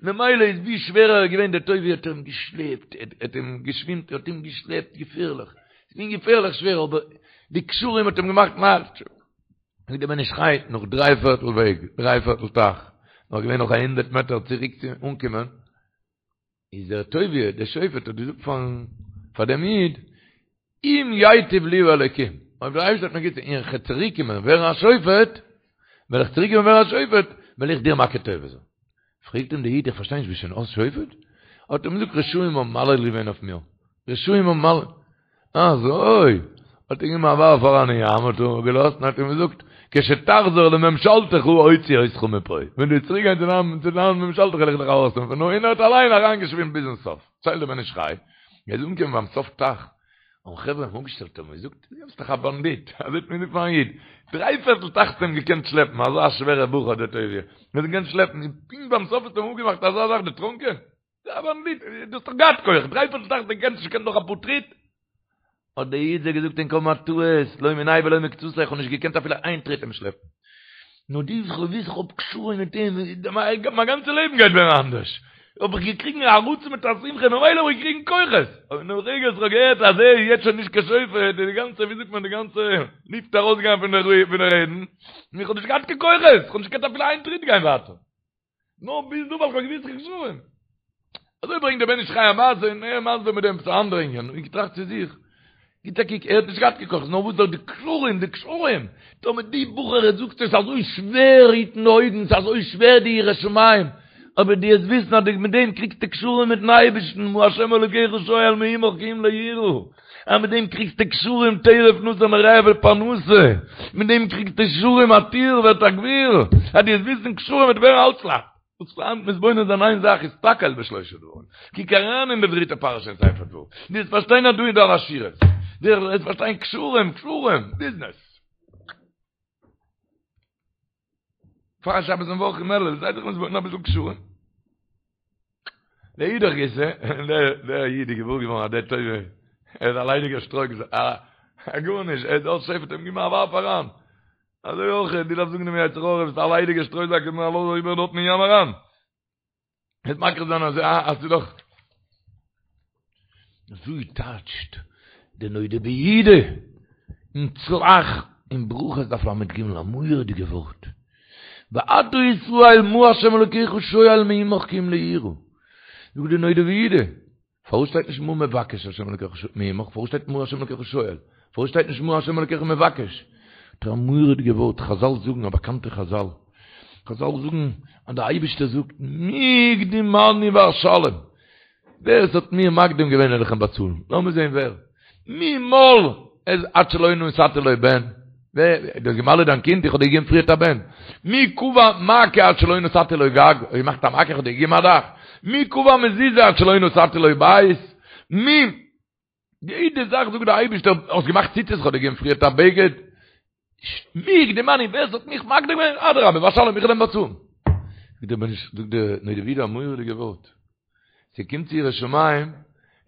ממילא איז ווי שווערער ער איז געווען, דער טוביה האט אים געשלעפט, ער האט אים געשווימט, ער האט אים געשלעפט געפערליך, ס'איז געווען געפערליך שווער, אבער די קשרים האט אים געמאכט לייכט. זאגט דער בן איש חי, נאך דריי פערטל וועג, דריי פערטל טייך, נאך געווען נאך א הונדרעט מעטער צוריק צו אנקומען, איז דער טוביה, דער שופט האט געזאגט פארן, פאר דעם איד, אם ייטיב לי האלוקים, אויב דער אייבערשטער וועט מיר גוט טון און איך וועל צוריק קומען ווערן א שופט, וועל איך צוריק קומען ווערן א שופט, וועל איך דיר מכיר טובה זיין. פרעגט אים דער איד, איך פארשטיי נישט, ביסט שוין אויס שופט? האט ער אים געזאגט, רשעים האבן מעליל געווען אויף מיר, רשעים האבן מעליל, אזוי? האט ער געגעבן א ווארף אריין אין ים, האט ער געלאזט און האט אים געזאגט, כשתחזור לממשלתך אוציא אותך מפה, ווען דו וועסט צוריק גיין צו דיין צו דיין ממשלתך וועל איך דיך ארויסנעמען פון דא, און ער האט אליין אריינגעשווימט ביזן סוף, ציילט דער בן איש חי, ער איז אנגעקומען ביים סוף טייך, האבן חברה אים אפגעשטעלט און געזאגט, דו ביסט דאך א באנדיט, אזוי האט מען געזאגט פארן איד, דריי פערטל טייך האסטו אים געקענט שלעפן, אזא שווערע בחור דער טוביה, מען האט אים געקענט שלעפן, און פונקט ביים סוף האסטו אים אפגעמאכט אזא זאך דערטרונקען? א באנדיט, דו האסט דאך געהאט כח, דריי פערטל טייך דו קענסט נישט קען דאך אפאר טריט. האט דער איד זיי געזאגט ענק האבן א טעות, לא מיניה ולא מקצתיה, איך האב נישט געקענט אפילו איין טריט אים שלעפן. נאר די וואס איך וויס איך האב קשרים מיט אים, מיין גאנצע לעבן גייט ווערן אנדערש. האב איך געקריגן א רצון מיט א שמחה, ממילא האב איך געקריגן כוחות. אבער אין דעם רגע וואס איך האב געהערט אז ער איז יעצט שוין נישט קיין שופט, איז די גאנצע, ווי זאגט מען, די גאנצע לופט ארויסגעגאנגען פון די רעדן, און איך האב נישט געהאט קיין כוחות, איך האב נישט געקענט אפילו איין טריט גיין ווייטער. נאר ביז דא ווייל כ'האב געוואוסט איך קשרים. אזוי ברענגט דער בן איש חי א מעשה און ער מסביר מיט דעם עפעס א אנדערע ענין, און געטראכט צו זיך, גיט א קוק, ער האט נישט געהאט קיין כוחות, נאר וואס דאך די קשרים, די קשרים, טאמער די בחור ער זאגט עס איז אזוי שווער היטן די אויגן, ס'איז אזוי שווער די יראת שמים, אבער דו וועסט וויסן אז מיט דעם קריגסטו קשרים מיטן אייבערשטן, מה ה' אלוקיך שואל מעמך כי אם ליראה. אז מיט דעם קריגסטו קשרים טרף נתן לרעהו פרנסה, מיט דעם קריגסטו קשרים א טיר ווערט א גביר, אז דו וועסט וויסן קשרים וועט ווערן אלץ לייכט. וואס פארהאן מתבונן זיין איין זאך הסתכל בשלושה דברים, קוק אריין אין די דריטע פרשה אין ספר דברים, דו וועסט פארשטיין אז דא איז דא אן עשירות, דו וועסט פארשטיין קשרים, קשרים, ביזנעס. פאר שבת און וואך אין אלול, זיי זיך מתבונן אביסל קשרים. לאידך גיסא, דער איד איז געוואר געווארן אז דער טוביה, ער איז א ליידיגער שטרוי, א גארנישט, ער איז אויס שופט, אים געבן א ווארף אריין. אזוי אויך, דו דארפסט זאגן דעם יצר הרע, ביסט א ליידיגער שטרויזאק, גיב מיר א לאז אריבער דארטן אין ים אריין. וועט מכיר זיין אז אז ס'איז דאך אזוי טייטשט די נודע ביהודה אין צל"ח אין ברכות דף ל"ג א מורא'דיגע ווארט ועתה ישראל מה ה' אלוקיך שואל מעמך כי אם ליראה זאגט די נודע ביהודה פארוואס שטייט נישט מה מבקש השם אלקיך מעמך? פארוואס שטייט מה השם אלקיך שואל? פארוואס שטייט נישט מה השם אלקיך מבקש? האט ער א מורא'דיגע ווארט, חזל זאגן, א באקאנטע חזל, חזל זאגן אז דער אייבערשטער זאגט מי הקדימני ואשלם, ווער עס האט מיר מקדים געווען וועל איך אים באצאלן, לאמיר זען ווער, מי מל את עד שלא נתתי לו בן, ווער, דו האסט געמל'עט דיין קינד, איך האב דיר געגעבן פריערט א בן. מי קבע מעקה עד שלא נתתי לו גג, האסט געמאכט א מעקה, איך האב דיר געגעבן א דאך. מי קבע מזוזה עד שלא נתתי לו בית, מי, יעדע זאך זאגט דער אייבערשטער, האסט געמאכט ציצית, איך האב דיר געגעבן פריערט א בגד. מי הקדימני, ווער ס'האט מיך מקדים געווען, אדרבה, ואשלם, איך וועל אים באצאלן. זאגט דער בן איש, זאגט דער נודע ביהודה א מורא'דיגע ווארט. ס'קומט צו יראת שמים,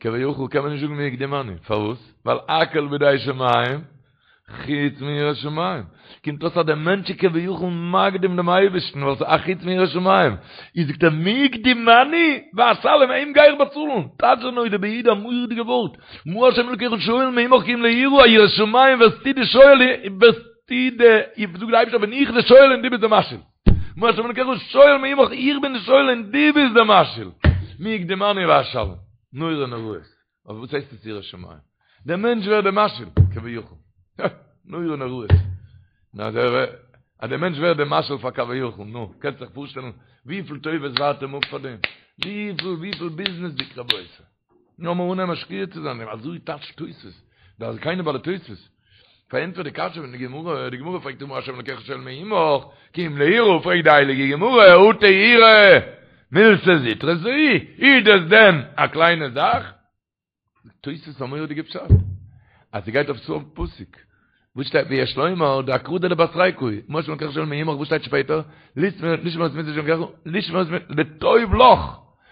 כביכול קען מען נישט זאגן מי הקדימני, פארוואס? ווייל הכל בידי שמים, חוץ מיראת שמים. קומט אויס אז דער מענטש איז כביכול מקדים דעם אייבערשטן, ווייל ס'איז א חוץ מיראת שמים. איז זאגט ער מי הקדימני, ואשלם, אים גיי איך באצאלן. טייטשט דער נודע ביהודה א מורא'דיגע ווארט. מה השם אלוקיך שואל מעמך כי אם ליראה, יראת שמים ווערסטו די שואל, ווערסטו די, זאגט דער אייבערשטער בין איך די שואל און דו ביסט די משאיל. מה השם אלוקיך שואל מעמך, איך בין די שואל און דו ביסט די משאיל. מי הקדימני ואשלם. נורא נוראות. אבער וואס הייסט עס יראת שמים? דער מענטש ווערט דער משאיל, כביכול. נורא נוראות. נו, אז ער, אז דער מענטש ווערט דער משאיל פאר כביכול, נו, קענסט זיך פארשטעלן וויפיל טובות ווארט אים אפ פאר דעם? וויפיל, וויפיל ביזנעס דיק רבותי. נו, לאמיר אנהייבן משקיע צו זיין אין דעם, אזוי טייטשט תוספות, די זקנים בעלי תוספות. פארענטפערט די קשיא פון די גמרא, די גמרא פרעגט מה השם אלוקיך שואל מעמך, כי אם ליראה, פרעגט די הייליגע גמרא, אטו יראה, מילתא זוטרתא היא, איז דאס דען א קליינע זאך? זאגט תוספות א מורא'דיגע פשט, אז ס'גייט אויף סוף פסוק, וואס שטייט ויש לומר דאקרא דלבתריה קאי, מה השם אלוקיך שואל מעמך, וואס שטייט שפעטער? לשמור את מצות השם אלוקיך, לשמור את מצות, לטוב לך,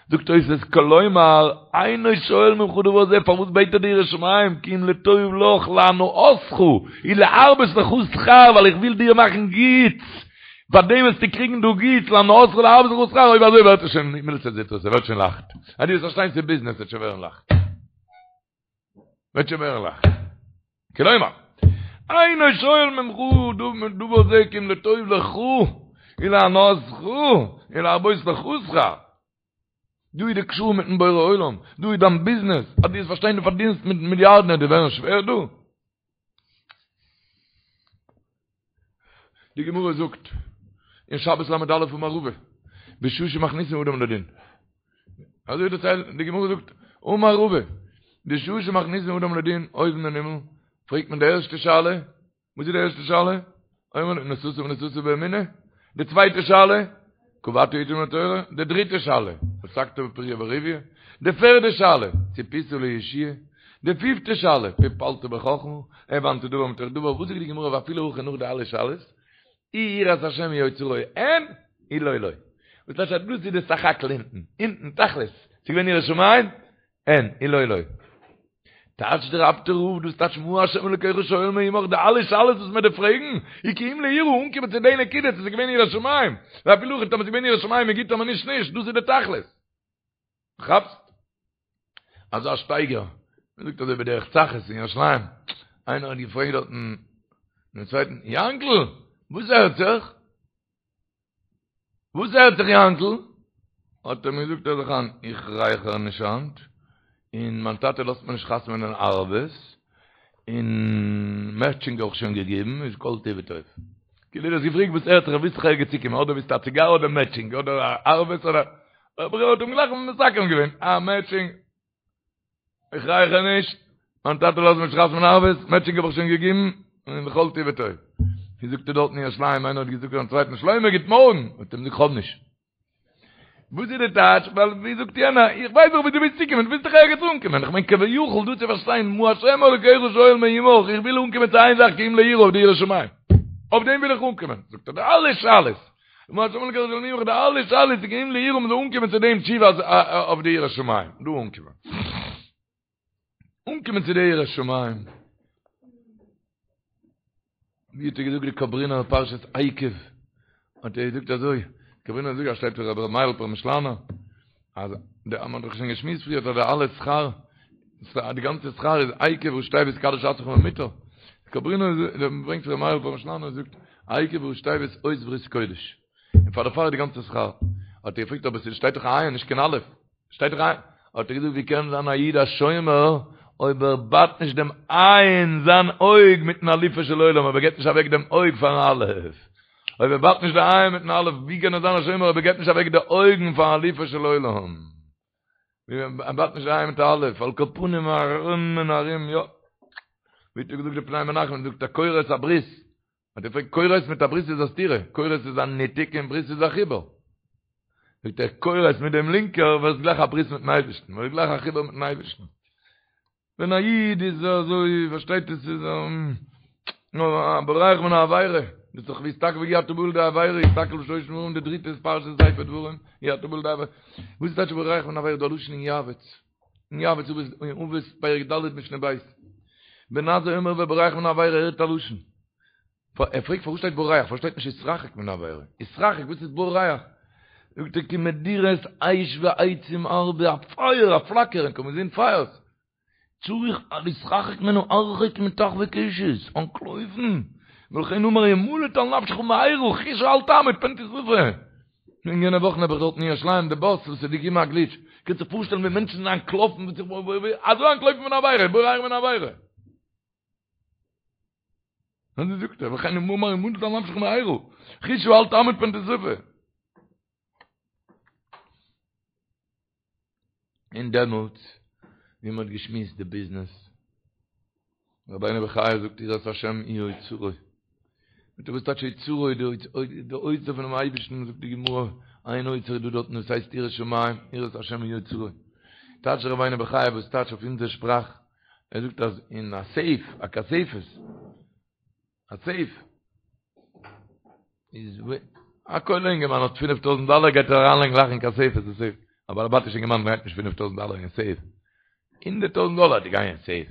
זאגט תוספות כלומר אינו שואל ממך דבר זה, פארוואס בעט ער דיר יראת שמים, כי אם לטוב לך להנאתך ולהרבות לך שכר, ווייל איך וויל דיר מאכן גוטס, פאר דעם וועסטו קריגן דא גוטס, להנאתך ולהרבות לך שכר, אויב אזוי ווערט עס שוין מילתא זוטרתא, ס'ווערט שוין לייכט, אז דו וועסט פארשטיין ס'איז ביזנעס וועט שוין ווערן לייכט. וועט שוין ווערן לייכט. כלומר, אינו שואל ממך דבר זה כי אם לטוב לך ולהנאתך ולהרבות לך שכר. דא איז די קשור מיטן בורא עולם, דא איז דיין ביזנעס, אז דו וועסט פארשטיין דו פארדינסט מיט מיליארדן וועט דיר ווערן שווער דא? די גמרא זאגט אין שבת ל"א אמר רבא בשעה שמכניסין אדם לדין אזוי דערציילט די גמרא זאגט אמר רבא בשעה שמכניסין אדם לדין אויבן אין הימל פרעגט מען די ערשטע שאלה וואס איז די ערשטע שאלה? אומרים לו נשאת ונתת באמונה די צווייטע שאלה קבעת עתים לתורה די דריטע שאלה עסקת בפריה ורביה די פערדע שאלה ציפית לישועה די פיפטע שאלה פלפלת בחכמה הבנת דבר מתוך דבר וואס זאגט די גמרא ואפילו הכי נאך די אלע שאלות אי יראת השם היא אוצרו אין אי לא לא וואס טייטש אז דאס איז די סך הכל אונטן אונטן תכלית ס'איז געווען יראת שמים אין אי לא לא טייטש דער אפטער רב דאס טייטש מה השם אלוקיך שואל מעמך די אלע שאלות וואס מען דארף פרעגן איז כי אם ליראה אנקומען צו די נקודה צו ס'איז געווען יראת שמים ואפילו הכי טאמער ס'איז געווען יראת שמים איז גוט טאמער נישט נישט דאס איז די תכלית כאפסט? אזא שטייגער מען זאגט אזוי בדרך צחות אין ירושלים איינער האט געפרעגט דארטן דעם צווייטן יאנקל וואס הערט זיך? וואס הערט זיך יאנקל? האט ער אים געזאגט הער זיך איין, איך רייכער נישט היינט, און מיין טאטע לאזט מיר נישט חתמ'נען ערבות, און מעטשינג האב איך שוין געגעבן, איז כל טוב וטוב. כאילו דו האסט געפרעגט וואס הערט זיך, ווילסט דאך ערגעץ צוקומען, אדער ווילסטו א ציגאר אדער מעטשינג, אדער ערבות אדער, אבער ער האט אים גלייך מסכם געווען, אה מעטשינג, איך רייכער נישט, מיין טאטע לאזט מיר נישט חתמ'נען ערבות, מעטשינג האב איך שוין געגעבן, און כל טוב וטוב. ווי זאגט ער דארט אין ירושלים, איינער האט געזאגט פארן צווייטן, שלמה גוט מארגן, האט ער אים געזאגט כ'האב נישט. וואס איז די טייטש? ווייל ווי זאגט יענער, איך ווייס דאך ווי דו ווילסט צוקומען, דו ווילסט דאך ערגעץ אנקומען, איך מיין כביכול דא צו פארשטיין, מה השם אלוקיך שואל מעמך, איך וויל אנקומען צו איין זאך כי אם ליראה אויף די יראת שמים. אויף דעם וויל איך אנקומען. זאגט ער די אלע שאלות, מה השם אלוקיך שואל מעמך די אלע שאלות איז כי אם ליראה מ'זאל אנקומען צו דעם תשובה אויף די יראת שמים דא אנקומען אנקומען צו די יראת שמים ווי האט ער געזאגט די קאברינער פרשת עקב האט ער געזאגט אזוי קאברינער זאגט אז שטייט פון רבי מיילעך פרעמישלאנער אז די מ'האט דאך שוין געשמועסט פריער אז די אלע שכר די גאנצע שכר איז עקב ראשי תיבות קדש עצמך במותר קאברינער ברענגט רבי מיילעך פרעמישלאנער זאגט עקב ראשי תיבות אות ברית קודש און פאר דערפאר איז די גאנצע שכר האט ער געפרעגט אבער ס'שטייט דאך א עין נישט קיין אלף שטייט דאך א האט ער געזאגט ווי קען זיין א איד א שומר אויב ער בייט נישט דעם עין זיין אויג מיטן אלופו של עולם אויב ער געבט נישט אוועק דעם אויג פארן אלף אויב ער בייט נישט די עין מיטן אלף ווי קען ער זיין א שומר אויב ער געבט נישט אוועק די אויגן פארן אלופו של עולם ער בייט נישט די עין מיט די אלף על כל פנים ארום און ארום יא ווי האט ער געזאגט די פני מנחם זאגט א כורת הברית האט ער געפרעגט כורת מיט א ברית איז א סתירה כורת איז א ניתוק און ברית איז א חיבור זאגט ער כורת מיט דעם לינקער ווערסט גלייך א ברית מיטן אייבערשטן ווערסט גלייך א חיבור מיטן אייבערשטן ווען א איד איז אזוי פארשטייט עס איז. נאר בורח מן העבירה, דאס איז דאך והסתכל ואי אתה בא לידי עבירה, הסתכל בשלושה דברים, די דריטע איז פרשת ספר דברים, אי אתה בא לידי עבירה, וואס איז טייטש בורח מן העבירה, דא א לשון אין יעבץ, אין יעבץ אבות אין אבות פרק ד' משנה ב', בן עזאי אומר ובורח מן העבירה, הערט א לשון, ער פרעגט פארוואס שטייט בורח, פארוואס שטייט נישט התרחק מן העבירה, התרחק וואס איז בורח? זאגט ער כי מדורת אש ועצים הרבה, א פייער א פלאקער, און קען מען זען פייערס, צריך להתרחק ממנו הרחק מטח וקשת, אנטלויפן, ולכן אמר המלט על נפשך מהרה, חוסה אל תעמוד פן תשרפה. אין יענע וואכן האב איך דארט אין ירושלים די באס וואס איז געקומען א גליטש, קענסט זיך פארשטעלן ווי מענטשן זענען אנטלאפן, אזוי אנטלויפן פון עבירה, בורח מן העבירה. אזוי זאגט ער, ולכן אמר המלט על נפשך מהרה, חוסה אל תעמוד פן תשרפה. און דעמאלטס ווי מען האט געשמועסט די ביזנעס, רבינו בחיי זאגט יראת השם היא אוצרו, מיט וואס טייטש אוצרו, די אוצר פונעם אייבערשטן, זאגט די גמרא, איין אוצר איז דא דארטן וואס הייסט יראת שמים, יראת השם היא אוצרו, טייטש רבינו בחיי וואס טייטש אויף אונזער שפראך, ער זאגט אז אין א סעיף, א כספת, א סעיף איז א כולל אינגערמאן האט 5000 דאלער גייט ער אריינלייגן גלייך אין כספת די סעיף א בעל הבתישע אינגערמאן לייגט נישט 5000 דאלער אין סעיף 100000 דאלער די גיין אין סעיף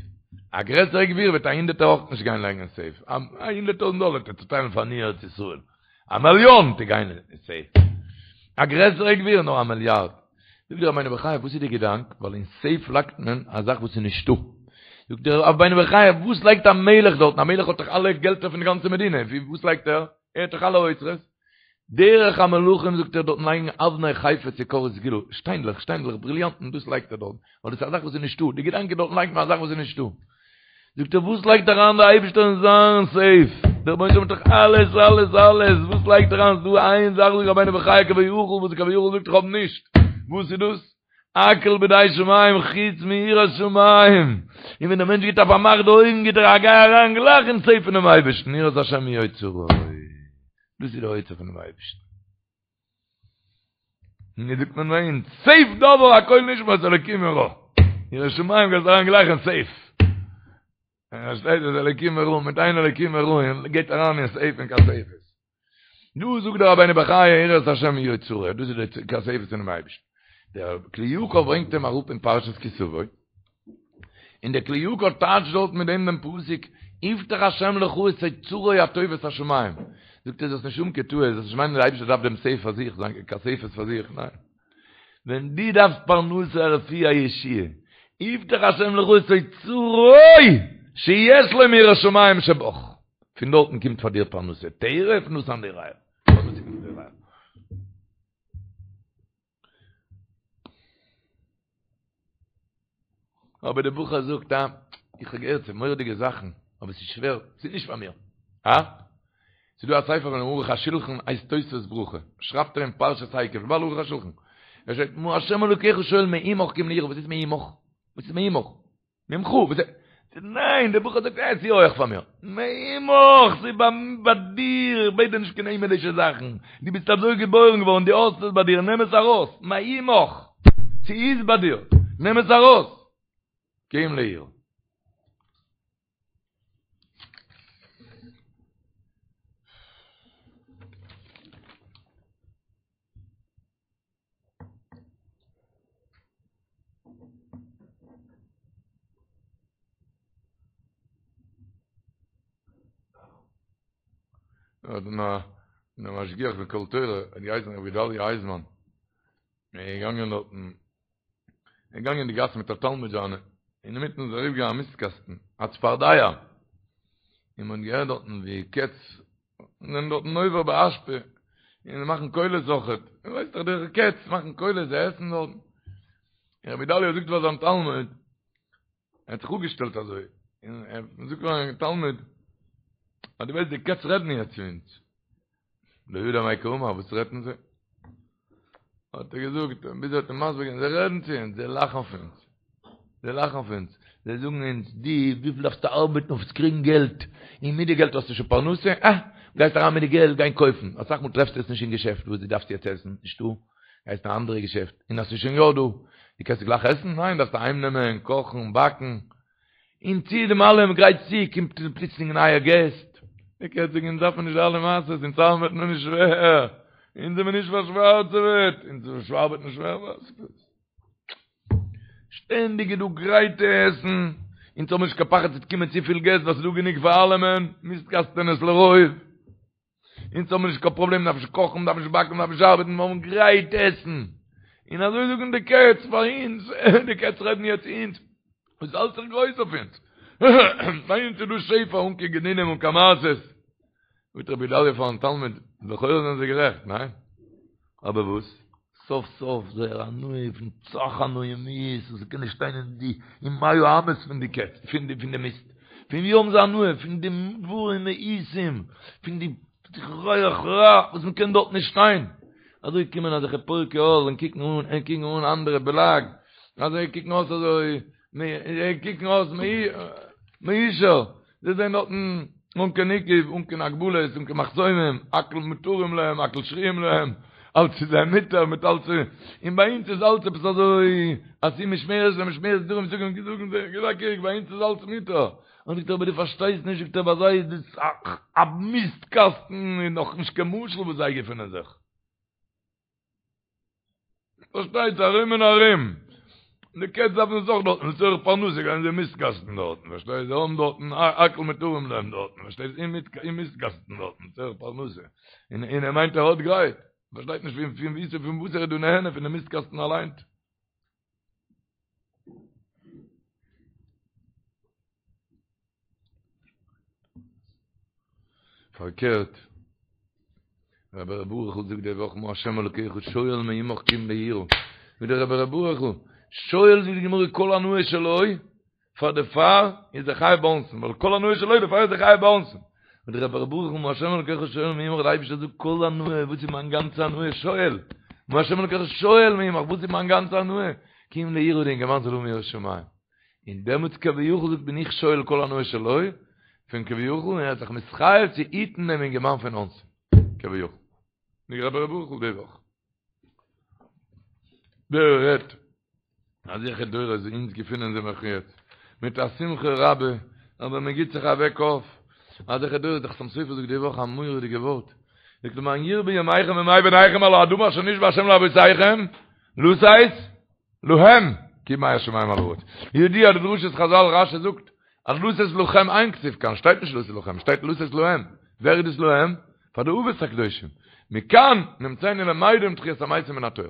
א גרעסערע גביר וועט א הונדערטער אויך נישט גיין לייגן אין סעיף א 100000 דאלער וועט ער צוטיילן פאר עניי ארץ ישראל א מיליאן די גיין אין סעיף א גרעסערע גביר נאר א מיליארד זאגט דער רבינו בחיי וואס איז די געדאנק ווייל אין סעיף לייגט מען א זאך וואס איז נישטא זאגט דער רבינו בחיי וואס לייגט א מלך דארטן א מלך האט דאך אלע געלטער פון די גאנצע מדינה וואס לייגט ער ער האט דאך אלע אוצרות דרך המלכים זאגט ער דארטן לייגן אבני חפץ יקר וסגולה שטיינדלעך שטיינדלעך בריליאנטן דאס לייגט ער דארט ווייל דאס איז א זאך וואס איז נישטא די געדאנק איז דארטן לייגט מען א זאך וואס איז נישטא זאגט ער וואס לייגט אריין דער אייבערשטער אין זיין סעיף? דער רבונו של עולם האט דאך אלעס אלעס אלעס, וואס לייגט ער אריין? ס'דא איין זאך זאגט רבינו בחיי כביכול וואס כביכול זאגט איך האב נישט, וואס איז דאס? הכל בידי שמים חוץ מיראת שמים, און ווען דער מענטש גיט א פארמאך די אויגן גיט ער א גיי אריין גלייך אין סעיף פונעם אייבערשטן, יראת השם היא אוצרו, דאס איז די אוצר פונעם אייבערשטן. און ווי זאגט מען ביי אונז, סעיף דבר הכל נשמע את אלוקים ירא. יראת שמים גייסט אריין גלייך אין סעיף. און עס שטייט אז אלוקים ירא, מיט איין אלוקים ירא, און גייט אריין אין סעיף אין כספת. דא זאגט דער רבינו בחיי יראת השם היא אוצרו, דאס איז די כספת פונעם אייבערשטן. דער כלי יקר ברענגט אים אראפ אין פרשת כי תבוא, און דער כלי יקר טייטשט דארט מיט דעם דעם פסוק, יפתח השם לך את אוצרו הטוב את השמים. זאגט ער זאלסט נישט האבן קיין טעות, זאלסט נישט מיינען דער אייבערשטער דארף דעם סעיף פאר זיך, זיין כספת פאר זיך, ניין. ווען דו דארפסט פרנסה א רפואה א ישועה, יפתח השם לך את אוצרו שיש לו מיראת שמים שבך. פון דארטן קומט פאר דיר פרנסה, טרף נתן ליראיו. פרנסה קומט פון ליראיו. אבער דער בחור זאגט אה, איך האב געהערט ס'איז מורא'דיגע זאכן, אבער ס'איז שווער, ס'איז נישט פאר מיר. אה? ס'איז דא א ספר פון ערוך השולחן הייסט תוספות ברכה, שרייבט ער אין פרשת עקב, בעל ערוך השולחן, ער שרייבט מה השם אלוקיך שואל מעמך כי אם ליראה, וואס איז מעמך? וואס איז מעמך? ממך, וואס איז? ניין, דער בחור זאגט, אה, ס'איז הויעך פאר מיר. מעמך, ס'איז ביי דיר, איך בעט דיר נישט קיין הימלישע זאכן. דו ביסט אזוי געבוירן געווארן, דו האסט עס ביי דיר, נעם עס ארויס. מעמך, ס'איז ביי דיר, נעם עס ארויס. כי אם ליראה. האט נא נא משגיח פון קול תורה האט געהייסן רבי גדליה אייזמאן ער איז געגאנגען דארטן ער איז געגאנגען אין די גאס מיט א תלמיד זיינע אינמיטן איז אריבערגעגאנגען א מיסט קאסטן א צפרדע און מען האט געהערט דארטן ווי קעץ זענען דארטן נובר באשפה און זיי מאכן קולות אויכעט, איר ווייסט דאך די קעץ מאכן קולות, זיי עסן דארטן. און רבי גדליה זאגט פאר זיין תלמיד, ער האט זיך אפגעשטעלט אזוי, און ער זאגט פאר זיין תלמיד, אז דו ווייסט די קעץ רעדן יעצט צו אונז. לא ידע מאי קאמר, וואס רעדן זיי? האט ער געזאגט, ביז ער האט אים מסביר געווען, זיי רעדן צו אונז, זיי לאכן פון אונז, זיי לאכן פון אונז, זיי זאגן אונז, דו, וויפיל דארפסטו ארבעטן אויף צו קריגן געלט, און מיט די געלט האסטו שוין פרנסה, אה, גייסט אריין מיט די געלט גיין קויפן, אסאך מאל טרעפסטו עס נישט אין געשעפט וואס דו דארפסט יעצט עסן, נישטא, גייסט אין א אנדערע געשעפט, און אז ס'איז שוין יא דא, דו קענסט גלייך עסן? ניין, דארפסט אהיים נעמען, קאכן, באקן, און צו דעם אלעם גרייטסט צו, קומט פלוצלינג נייע געסט. די קעץ זאגן אונז דארף מען נישט די אלע מעשות, אונז ארבעט מען נישט שווער, אונז זעמער נישט פארשווארצעוועט, אונז ארבעט נישט שווער, וואס? שטענדיג איז דא גרייטע עסן, אונז האבן נישט קיין פחד ס'וועט קומען צופיל געסט ווייל ס'איז דא גענוג פאר אלעמען, מיסט קאסטענעס לרוב. אונז האבן נישט קיין פראבלעם, מ'דארף נישט קאכן, מ'דארף נישט באקן, מ'דארף נישט ארבעטן, מיר האבן גרייט עסן. און אזוי זאגן די קעץ פאר אונז, די קעץ רעדן יעצט צו אונז, וואס האלט זיך גרויס אויף אונז? ביי אונז איז דא שפע אן קיין גנינים אן קיין מעשות. זאגט רבי גדליה פארן תלמיד, לכאורה זענען זיי גערעכט, ניין? אבער וואס? סוף סוף זייער הנאה פון סאך הנאה מיאוס וואס קען נישט שטיין אין די אין מאה אמות פון די קעץ פון די פון די מיסט פון ווי האבן זיי הנאה פון די דברים מאוסים פון די ריח רע וואס מען קען דארט נישט שטיין אזוי קומען אזעלכע פורקי עול און קוקן אן און קוקן אן אנדערע בלעג אזוי קוקן אויס אזוי קוקן אויס מיושר זיי זענען דארטן אן קיין עיכוב, אן קיין הגבלות, אן קיין מחסומים, הכל מותרים להם, הכל שרויים להם, אלץ איז זיי מותר מיט אלץ, און ביי אונז איז אלץ עפעס אזוי, עשו משמרת למשמרת דרום זאגן זאגן זיי, גיב א קוק, ביי אונז איז אלץ מותר. און זאגט ער אבער דו פארשטייסט נישט, זאגט ער, ביי זיי איז דאס א מיסט קאסטן, און נאכנישט קיין משל וואס זיי געפינען זיך. פארשטייט זיך ארום און ארום. די קעץ דארפן עס אויך דארטן, לצורך פרנסה גייען זיי מיסטקאסטן דארטן, פארשטייסט? זיי האבן דארטן הכל מותרים להם דארטן, פארשטייסט? אין מיסטקאסטן דארטן, לצורך פרנסה. און און ער מיינט ער האט גרייט. פארשטייט נישט פון פון וואו פון וואס ער איז דא נהנה פון די מיסטקאסטן אליינס. פארקערט, רבי ר' ברוכ'ל זאגט די וואך מה השם אלוקיך שואל מעמך כי אם ליראה, ווי דער רבי ר' ברוכ'ל שואל זאגט די גמרא כל הנאה שלו, פאר דערפאר איז ער חייב באונסין, ווייל כל הנאה שלו דערפאר איז ער חייב באונסין. און דער רבי ר' ברוכ'ל מה השם אלוקיך שואל מעמך דער אייבערשטער זאגט כל הנאה וואס איז מיין גאנצע הנאה שואל, מה השם אלוקיך שואל מעמך וואס איז מיין גאנצע הנאה, כי אם ליראה די אינגערמאן זאל האבן יראת שמים. און דעמאלטס כביכול זאגט בין איך שואל כל הנאה שלו, פון כביכול, און ער האט זיך מתחייב צו היטן דעם אינגערמאן פון אונסים, כביכול. די רבי ר' ברוכ'ל די וואך. דער רעדט אזעלכע דורות ווי אונז געפינען זיך נאך יעצט, מיט א שמחה רבה, אבער מען גיט זיך א וועק אויף, אזעלכע דורות, דער חתם סופר זאגט די וואך א מורא'דיגע ווארט, זאגט למען ירבו ימיכם וימי בניכם על האדמה אשר נשבע ה' לאבותיכם, לתת להם, כימי השמים על הארץ. ידוע די דרשת חזל רשי זאגט אז לתת לכם אין כתיב כאן, שטייט נישט לתת לכם, שטייט לתת להם. ווער איז דאס להם? פאר די אבות הקדושים. מכאן נמצאנו למדים תחיית המתים מן התורה.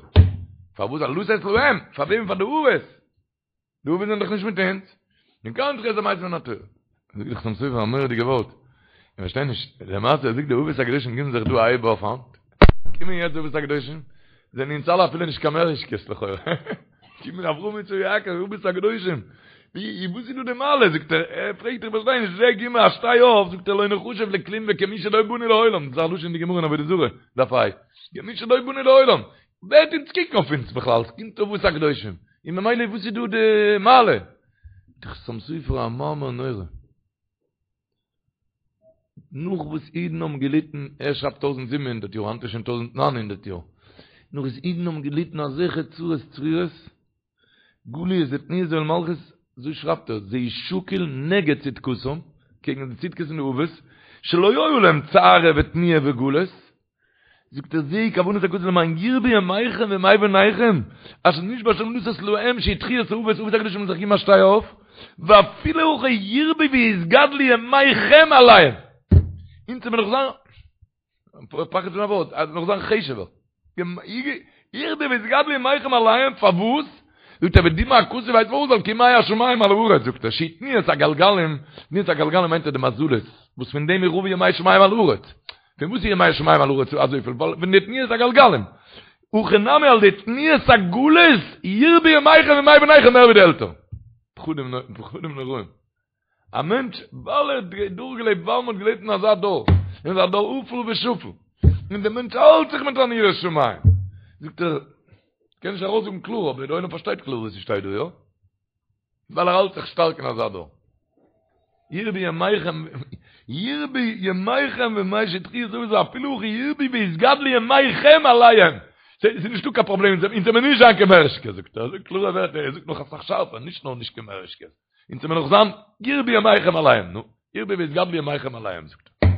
פארוואס א לתת להם? פאר וועם? פאר די אבות. די אבות זענען דאך נישט מיט אונז. מכאן תחיית המתים מן התורה. זאגט דער חתם סופר א מורא'דיגע ווארט. איך פארשטיי נישט, למעשה זאגט די אבות הקדושים גיבן זיך דא א הייב אויף היינט. קומען יעצט די אבות הקדושים, זענען אונז אלע אפילו נישט קיין מוראשקעס לכאורה. קומען אברהם יצחק יעקב, אבות הקדושים. ווי וואס איז דא די מעלה? זאגט ער, ער פרעגט איך פארשטיי נישט, זיי גיבן א שטיי אויף, זאגט ער לא נחשב לכלום וכמי שלא באנו לעולם, דאס איז א לשון אין די גמרא אין עבודה זרה, דף ה'. כמי שלא באנו לעולם. ווער וועט אונז קוקן אויף אונז בכלל? ס'קומט אבות הקדושים. און ממילא וואס איז דא די מעלה? דער חתם סופר א מאמר נורא. נאך וואס אידן האבן געליטן, ער שרייבט 1700 יאר, היינט איז שוין 1900 יאר, נאך וואס אידן האבן געליטן אזעלכע צרות צרורות, גליות ותנועות עול מלכות, אזוי שרייבט ער, זה שקול נגד צדקתם, קעגן די צדקות פון די אבות, שלא היו להם צער ותנועה וגלות, זאגט ער זוהי כוונת הכתוב למען ירבו ימיכם וימי בניכם אשר נשבע השם לתת להם שהיא תחיית האבות אבות הקדושים האבן זיך געגעבן א שטיי אויף ואפילו הכי ירבו ויתגדלו ימיכם עליהם אונז וועלן נאך זיין פחד פון א ווארט אז נאך זיין חשוב'ער ירבו ויתגדלו ימיכם עליהם פארוואס זאגט ער ודימה הכתוב ווייסט פארוואס ווייל כימי השמים על הארץ זאגט ער שהיא תנועת הגלגלים תנועת הגלגלים מיינט ער די מזלות וואס פון דעם איז רבו ימי שמים על הארץ פון וואס איז ימי שמים על הארץ אזויפיל? ווייל פון די תנועת הגלגלים. הכא נמי על ידי תנועת הגלות ירבו ימיכם וימי בניכם מער ווי די עלטערן. פחדים פחדים נוראים. א מענטש ווייל ער האט דורכגעלעבט ווייל מען האט געלעבט אין אזא דור, אין אזא דור אפל ושפל, און דער מענטש האלט זיך מיט אן יראת שמים. זאגט ער, כ'קען נישט ארויסזאגן קלאר אבער דער עולם פארשטייט קלאר וואס ס'שטייט דא, יא? ווייל ער האלט זיך שטארק אין אזא דור. ירבו ימיכם, ירבו ימיכם וימי שתחי' זאגן זיי אפילו הכי ירבו ויתגדלו ימיכם עליהם. ס'איז נישטא קיין פראבלעם, אונז זעמיר נישט זיין קיין מוראשקעס, זאגט ער, זאגט קלארע ווערטער, ער זאגט נאך אסאך שארפער, נישט נאר נישט קיין מוראשקעס, אונז זעמיר נאך זיין ירבו ימיכם עליהם, נו, ירבו ויתגדלו ימיכם עליהם, זאגט ער.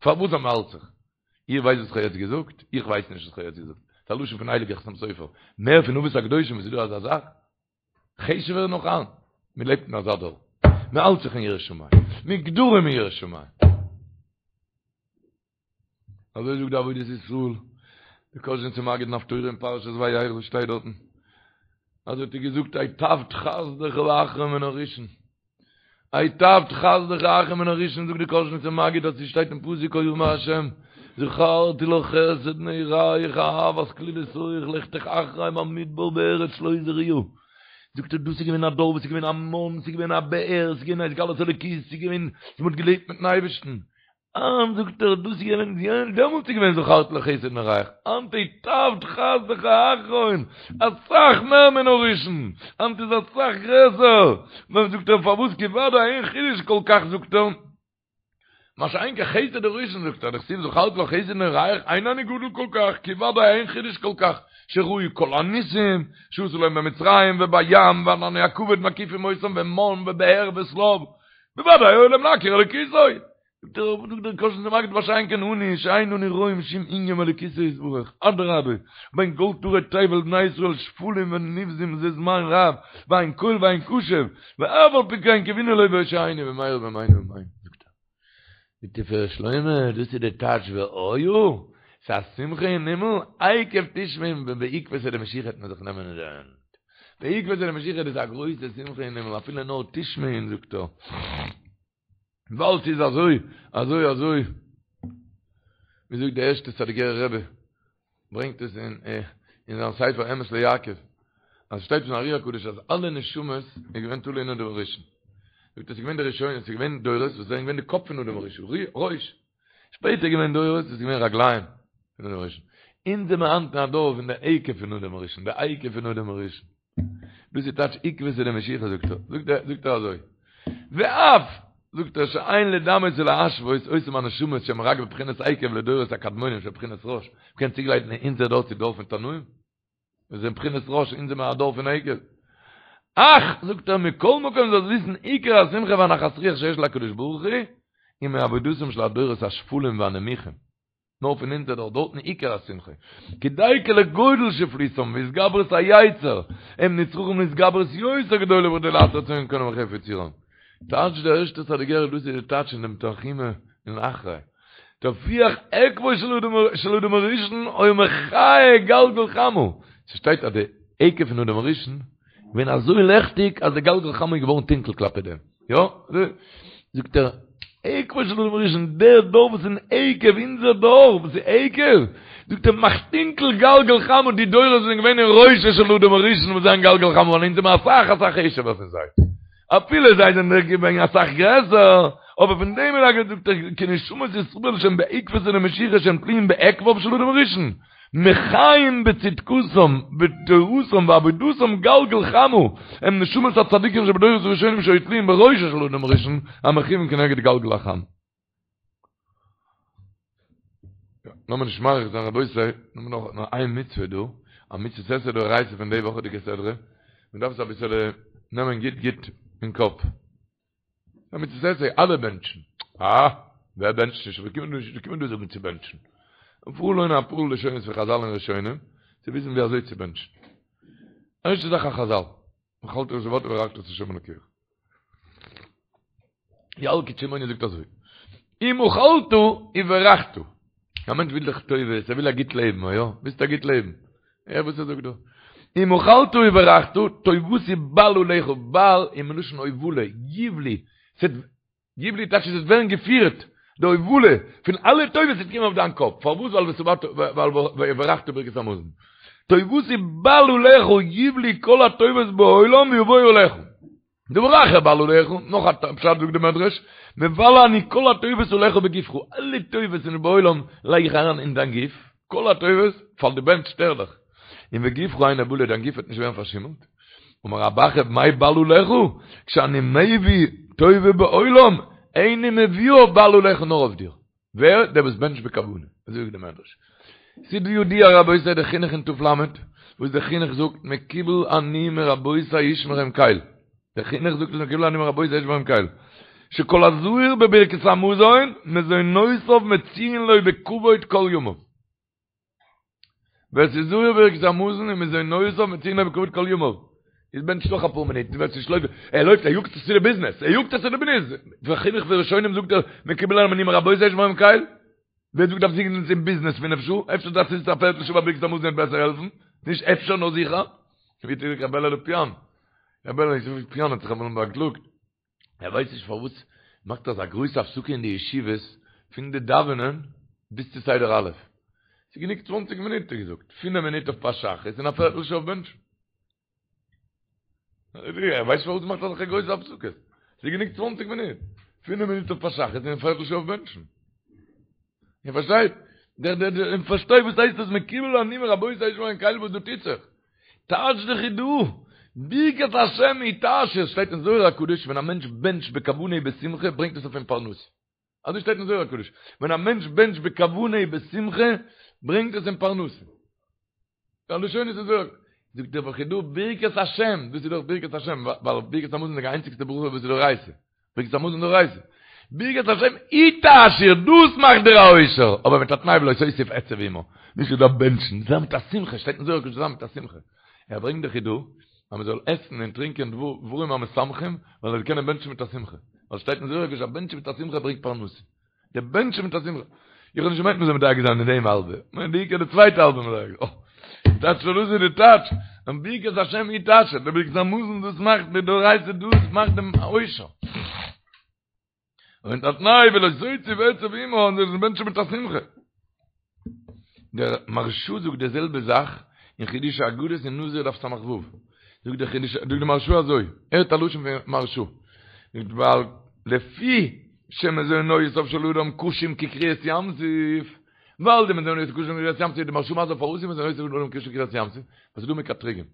פארוואס אז מ'האלט זיך? איר ווייסט וואס כ'האב יעצט געזאגט? איך ווייס נישט וואס כ'האב יעצט געזאגט. ס'איז א לשון פון הייליגער חתם סופר. מער פון אבות הקדושים וואס איז דא אזא זאך? חשוב'ער נאך היינט. מ'לעבט אין אזא דור. מ'האלט זיך אין יראת שמים. מיט גדרים אין יראת שמים. אזוי זאגט די עבודת ישראל. די קאזשניצער מגיד אין הפטורה אין פרשת וירא וואס שטייט דארטן? אזוי האט ער געזאגט היטבת חסדך האחרון מן הראשון. היטבת חסדך האחרון מן הראשון זאגט די קאזשניצער מגיד אז ס'שטייט אין פסוק כה אמר השם זכרתי לך חסד נעוריך אהבת כלולותיך לכתך אחרי במדבר בארץ לא זרועה זאגט ער דאס איז געווען א דור וואס איז געווען א מן ס'איז געווען א באר ס'איז געווען א התגלות אלוקית ס'איז געווען מ'האט געלעבט מיטן אייבערשטן היינט זאגט ער דאס איז געווען דעמאלטס איז געווען זכרתי לך חסד נעוריך, היינט היטבת חסדך האחרון, אסאך מער מן הראשון, היינט איז אסאך גרעסער, נאר זאגט ער פארוואס כי ודאי אין חידוש כל כך זאגט ער, מה שאין כן חסד הראשון זאגט ער דכתיב זכרתי לך חסד נעוריך אין אני גדול כל כך כי ודאי אין חידוש כל כך שראו כל הניסים שעשה להם במצרים ובים וענני הכבוד מקיפים אותם ומן ובאר ושליו בוודאי היה להם להכיר אלוקותו זאגט דער קאזשניצער מגיד מה שאין כן אנו שאין אנו רואים שום ענין באלוקותו יתברך אדרבה בין כל טורי תבל בני ישראל שפלים ונבזים זה זמן רב ואין קול ואין קשב ואף על פי כן קוינו לו והושיענו במהרה בימינו אמן זאגט ער די תפארת שלמה דאס איז די טייטש והיה ס'איז א שמחה אין הימל עקב תשמעון ווען בעקבתא דמשיחא וועט מען זיך נעמען אין די הענט בעקבתא דמשיחא איז א גרויסע שמחה אין הימל אפילו נאר תשמעון זאגט ער ווייל ס'איז אזוי, אזוי, אזוי, ווי זאגט דער ערשטער סאדיגערער רבי, ברענגט עס אין אין זיין ספר אמת ליעקב, אז שטייט פון ארי הקדוש אז אלע נשמות איז געווען תלוי אין אדם הראשון. זאגט ער ס'איז געווען די ראשונים, ס'איז געווען דורות וואס זענען געווען די קאפ פון אדם הראשון, ראש. שפעטער איז געווען דורות וואס איז געווען רגליים פון אדם הראשון. אונז זעמער היינט אין א דור פון די עקב פון אדם הראשון, די עקב פון אדם הראשון. דאס איז טייטש עקבתא דמשיחא זאגט ער, זאגט ער, זאגט ער אזוי, ואף, זאגט ער, שאין לדמות ולהשוות אותם הנשמות שהם רק בבחינת עקב לדורות הקדמונים של בחינת ראש, מ'קען צוגלייכן אונזער דור צו דור פון תנאים? מיר זענען בחינת ראש, אונז זעמער א דור פון עקב. אך, זאגט ער, מכל מקום זאלסט וויסן עיקר השמחה והנחת רוח שיש להקדוש ברוך הוא, היא מעבודתם של הדורות השפלים והנמוכים. נאר פון אונזער דור, דארטן עיקר השמחה. כי דייקא לגודל שפלותם והתגברות היצר, הם נצרכים להתגברות יותר גדולה בכדי לעשות רצון קונם וחפץ יצרם. טייטש דער ערשטער סאדיגערער דאס איז די טייטש אין דעם תנחומא אין אחרי. תוכיח עקבו של אדם הראשון היה מכהה גלגל חמה. ס'שטייט אז די עקב פון אדם הראשון געווען אזוי לעכטיג אז די גלגל חמה איז געווארן טונקל כלפי דעם. יא? זאגט ער, עקבו של אדם הראשון, דער דור וואס איז אין עקב, אונזער דור וואס איז עקב, זאגט ער, מאכט טונקל גלגל חמה, די דורות זענען געווען אין ראשו של אדם הראשון וואס זענען גלגל חמה, ווייל אונז זעמער אסאך אסאך חשוב'ער פון זיי. אפילו זיי זענען געווען אסאך גרעסער, אבער פון דעם איז א זאגט ער, כי נשמות ישראל שהם בעקבתא דמשיחא שהם תלויים בעקביו של אדם הראשון, מחיים בצדקתם בתורתם ועבודתם גלגל חמה, הם נשמות הצדיקים שבדורות הראשונים שהיו תלויים בראשו של אדם הראשון, המכוון כנגד גלגל החמה. לאמיר נישט מאריך זיין רבותי, נאר נאך נאר איין מצוה דא, א מצוות עשה דאורייתא פון די וואכעדיגע סדרה, מען דארף עס אביסעלע נעמען גוט גוט אין קאפ. א מצוות עשה, אלע בענטשן. אה, ווער בענטשט נישט? ווער קומט דא, קומט דא זאגן צו בענטשן? פארליינען אפאר לשונות פון חזל און ראשונים, צו וויסן ווי אזוי צו בענטשן. ערשטע זאך א חזל, אכלת ושבעת וברכת את השם אלוקיך. ילקוט שמעוני זאגט אזוי, אם אכלת וברכת. א מענטש וויל דאך טובות, ער וויל א גוט לעבן, יא? ווילסט א גוט לעבן? הער וואס ער זאגט דא. אם אכלת וברכת, טובתי בל עליך, בל איז מלשון הובלה, יובלו, ס'וועט, יובלו טייטש עס וועט ווערן געפירט, די הובלה פון אלע טובות וועט קומען אויף דיין קאפ, פארוואס? ווייל ושבעת, ווייל וברכת ברכת המזון. טובתי בל עליך, יובלו כל הטובות בעולם ויבואו עליך. דבר אחר בל עליך, נאך א פשט זאגט די מדרש, מבלה אני כל הטובות עליך בגופך, אלע טובות אין בעולם לייג איך אריין אין דיין גוף, כל הטובות, פאר דו בענטשסט ערליך, און וגופך אינו בלה, דיין גוף וועט נישט ווערן פארשימלט. אמר רב אחא מאי בל עליך, כשאני מביא טובה בעולם, איני מביאה בל עליך נאר אויף דיר. ווער? דער וואס בענטשט בכוונה. אזוי זאגט די מדרש. ס'איז ידוע רבותי די חינוך אין ת"ל, וואס די חינוך זאגט מקובל אני מרבותי ישמרם קל. די חינוך זאגט עס מקובל אני מרבותי ישמרם קל. שכל הזהיר בברכת המזון, מזונותיו מצויין לו בכבוד כל ימיו. ווער ס'איז זהיר בברכת המזון איז מזונותיו מצויין לו בכבוד כל ימיו. איז בענטשט נאך אפאר מינוט, ווער ס'נישט לויפט, ער לויפט, ער יאגט זיך צו די ביזנעס, ער יאגט זיך צו די ביזנעס, וחינוך פון ראשונים זאגט ער, מקובל עלי מרבותי שמהם קל. ווער זאגט דארף זיצן אין ביזנעס פינף שעה? אפשר דארף זיצן א פערטל שעה ביי ברכת המזון וועט בעסער העלפן? נישט אפשר נאר זיכער. ווי האט געזאגט ר' בערל לאפיאן? ר' בערל לאפיאן האט זיך אמאל באקלאגט, ער ווייסט נישט פארוואס מאכט אזא גרויסע הפסקה אין די ישיבות פון די דאווענען ביז צו סדר א'. ס'איז גענוג צוואנציג מינוט האט ער געזאגט, פינף מינוט אויף פת שחרית און א פערטל שעה אויף בענטשן. ער ווייסט פארוואס מ'מאכט אזעלכע גרויסע הפסקות. ס'איז גענוג צוואנציג מינוט. פינף מינוט אויף פת שחרית און א פערטל שעה אויף בענטשן. איר פארשטייט? דער דער דער איר פארשטייט וואס הייסט דאס מקובל אני מרבותי שומרים קל וואס דא טוט זיך. טייטש די חיד"א, ברכת השם היא תעשיר, שטייט אין זוהר הקדוש ווען א מענטש בענטשט בכוונה ובשמחה ברענגט עס אויף אים פרנסה. אזוי שטייט אין זוהר הקדוש, ווען א מענטש בענטשט בכוונה ובשמחה ברענגט עס אים פרנסה. די לשונות אין זוהר, זאגט דער חיד"א ברכת השם, דאס איז דאך ברכת השם, ווייל ברכת המזון איז די איינציגסטע ברכה וואס איז דאורייתא, ברכת המזון דאורייתא. ברכת השם היא תעשיר, דאס מאכט דיר א עושר, אבער מיט א תנאי ולא תוסיף עצב עמה, נישט דארף בענטשן, זיין מיט א שמחה, שטייט אין זוהר הקדוש זיין מיט א שמחה. ער ברענגט די חיד"א אז מען זאל עסן און טרינקען דברים המשמחים, ווייל ער זאל קענען בענטשן מיט א שמחה. ווייל שטייט אין זוהר הקדוש אז בענטשן מיט א שמחה ברענגט פרנסה. די בענטשן מיט א שמחה. איך האב נישט געמיינט מען זאל מדייק זיין אין דעם האלבע. כ'מיין די עיקר די צווייטע האלבע מדייק זיין. אה. טייטש דאס איז די טייטש. און ברכת השם היא תעשיר. די ברכת המזון דאס מאכט די דאורייתא דאס מאכט דעם עושר. און א תנאי ולא תוסיף עצב עמה און זאלסט בענטשן מיט א שמחה. דער מהרש"א זאגט די זעלבע זאך אין חידושי אגדות אין נזיר דף ס"ו. זאגט דער חידוש, זאגט דער מהרש"א אזוי, הערט א לשון פון מהרש"א. זאגט ווייל לפי שמזונותיו של אדם קשים כקריעת ים סוף, ווייל די מזונות קשים כקריעת ים סוף, די מהרש"א מסביר פארוואס איז מזונותיו של אדם קשים כקריעת ים סוף, ווייל ס'איז דא מקטריגים.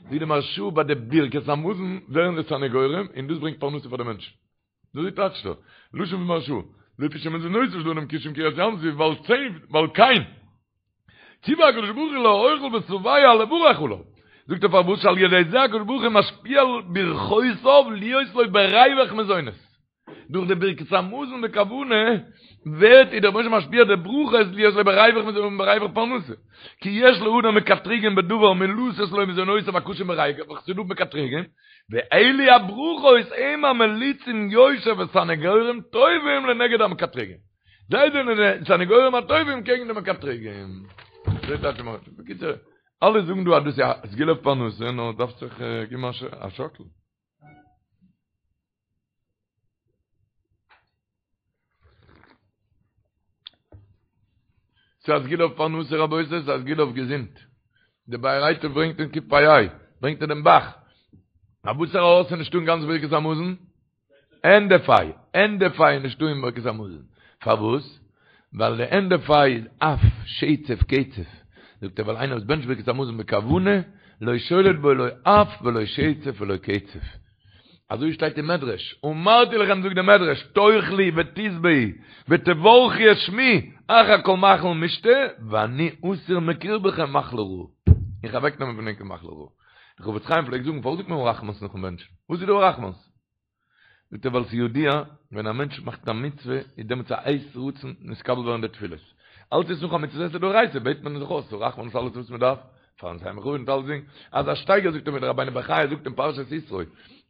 זאגט די מהרש"א ביי די ברכת המזון ווערן די סניגורים און דאס ברענגט פרנסה פאר די מענטשן. אזוי טייטשט ער, לשון פון מהרש"א, לפי שמזונותיו של אדם קשים כקריעת ים סוף ועל צי ועל כן ציווה הקדוש ברוך הוא לאוכל ושבע לברך עליו. זאגט ער פארוואס שעל ידי זה הקדוש ברוך הוא משפיע ברכותיו להיות לו בריווח מזונות. דורך די ברכת המזון בכוונה ווערט איז דער רבונו של עולם משפיע די ברכות להיות לו בריווח מזונות און בריווח פרנסה. כי יש לאדם מקטריגים בדבר מלתת לו מזונותיו הקשים בריווח, ס'איז דא מקטריגים, ואלו הברכות הם המליצים יושר וסניגורים טובים לנגד המקטריגים. זיי זענען די סניגורים הטובים קעגן די מקטריגים. אזוי טייטשט מען. בקיצור, אלע זאגן דא אז דאס איז א סגולה אויף פרנסה, נאר דארף זיך געבן א שאקל. ס'איז א סגולה אויף פרנסה רבותי, ס'איז א סגולה אויף געזונט. דער באר היטב ברענגט אין קפ"ה, ברענגט ער דעם ב"ח. א וואסערע אות איז נישטא אין גאנץ ברכת המזון? ענדע פ"ה, ענדע פ"ה איז נישטא אין ברכת המזון. פארוואס? ווייל די ענדע פ"ה איז אף, שצף, קצף. זאגט ער ווייל איינער וואס בענטשט ברכת המזון בכוונה, לא שולט בו לא אף ולא שצף ולא קצף. אזוי שטייט אין מדרש, אמרתי לכם זאגט דער מדרש, תאכלו ותשבעו ותברכו את שמי, אחר כל מאכל ומשתה, ואני אסיר מקרבכם מחלה רעה. איך אוועקנעמען פון ענק מחלה רעה. דער חפץ חיים פלעגט זאגן, פארוואס זאגט מען הרחמנ'ס נאכן בענטשן? וואס איז דא הרחמנ'ס? זאגט ער ווייל ס'איז ידוע, ווען א מענטש מאכט א מצוה, איז דעמאלטס א עת רצון נתקבל ווערן די תפילות. אלץ איז נאך א מצוה עשה דאורייתא, בעט מען זיך אויס, הרחמנ'ס אלעס וואס מען דארף, פארן סיים בכבוד און אלצדינג, אז א שטייגער זאגט ער ווי דער רבינו בחיי זאגט אין פרשת יתרו,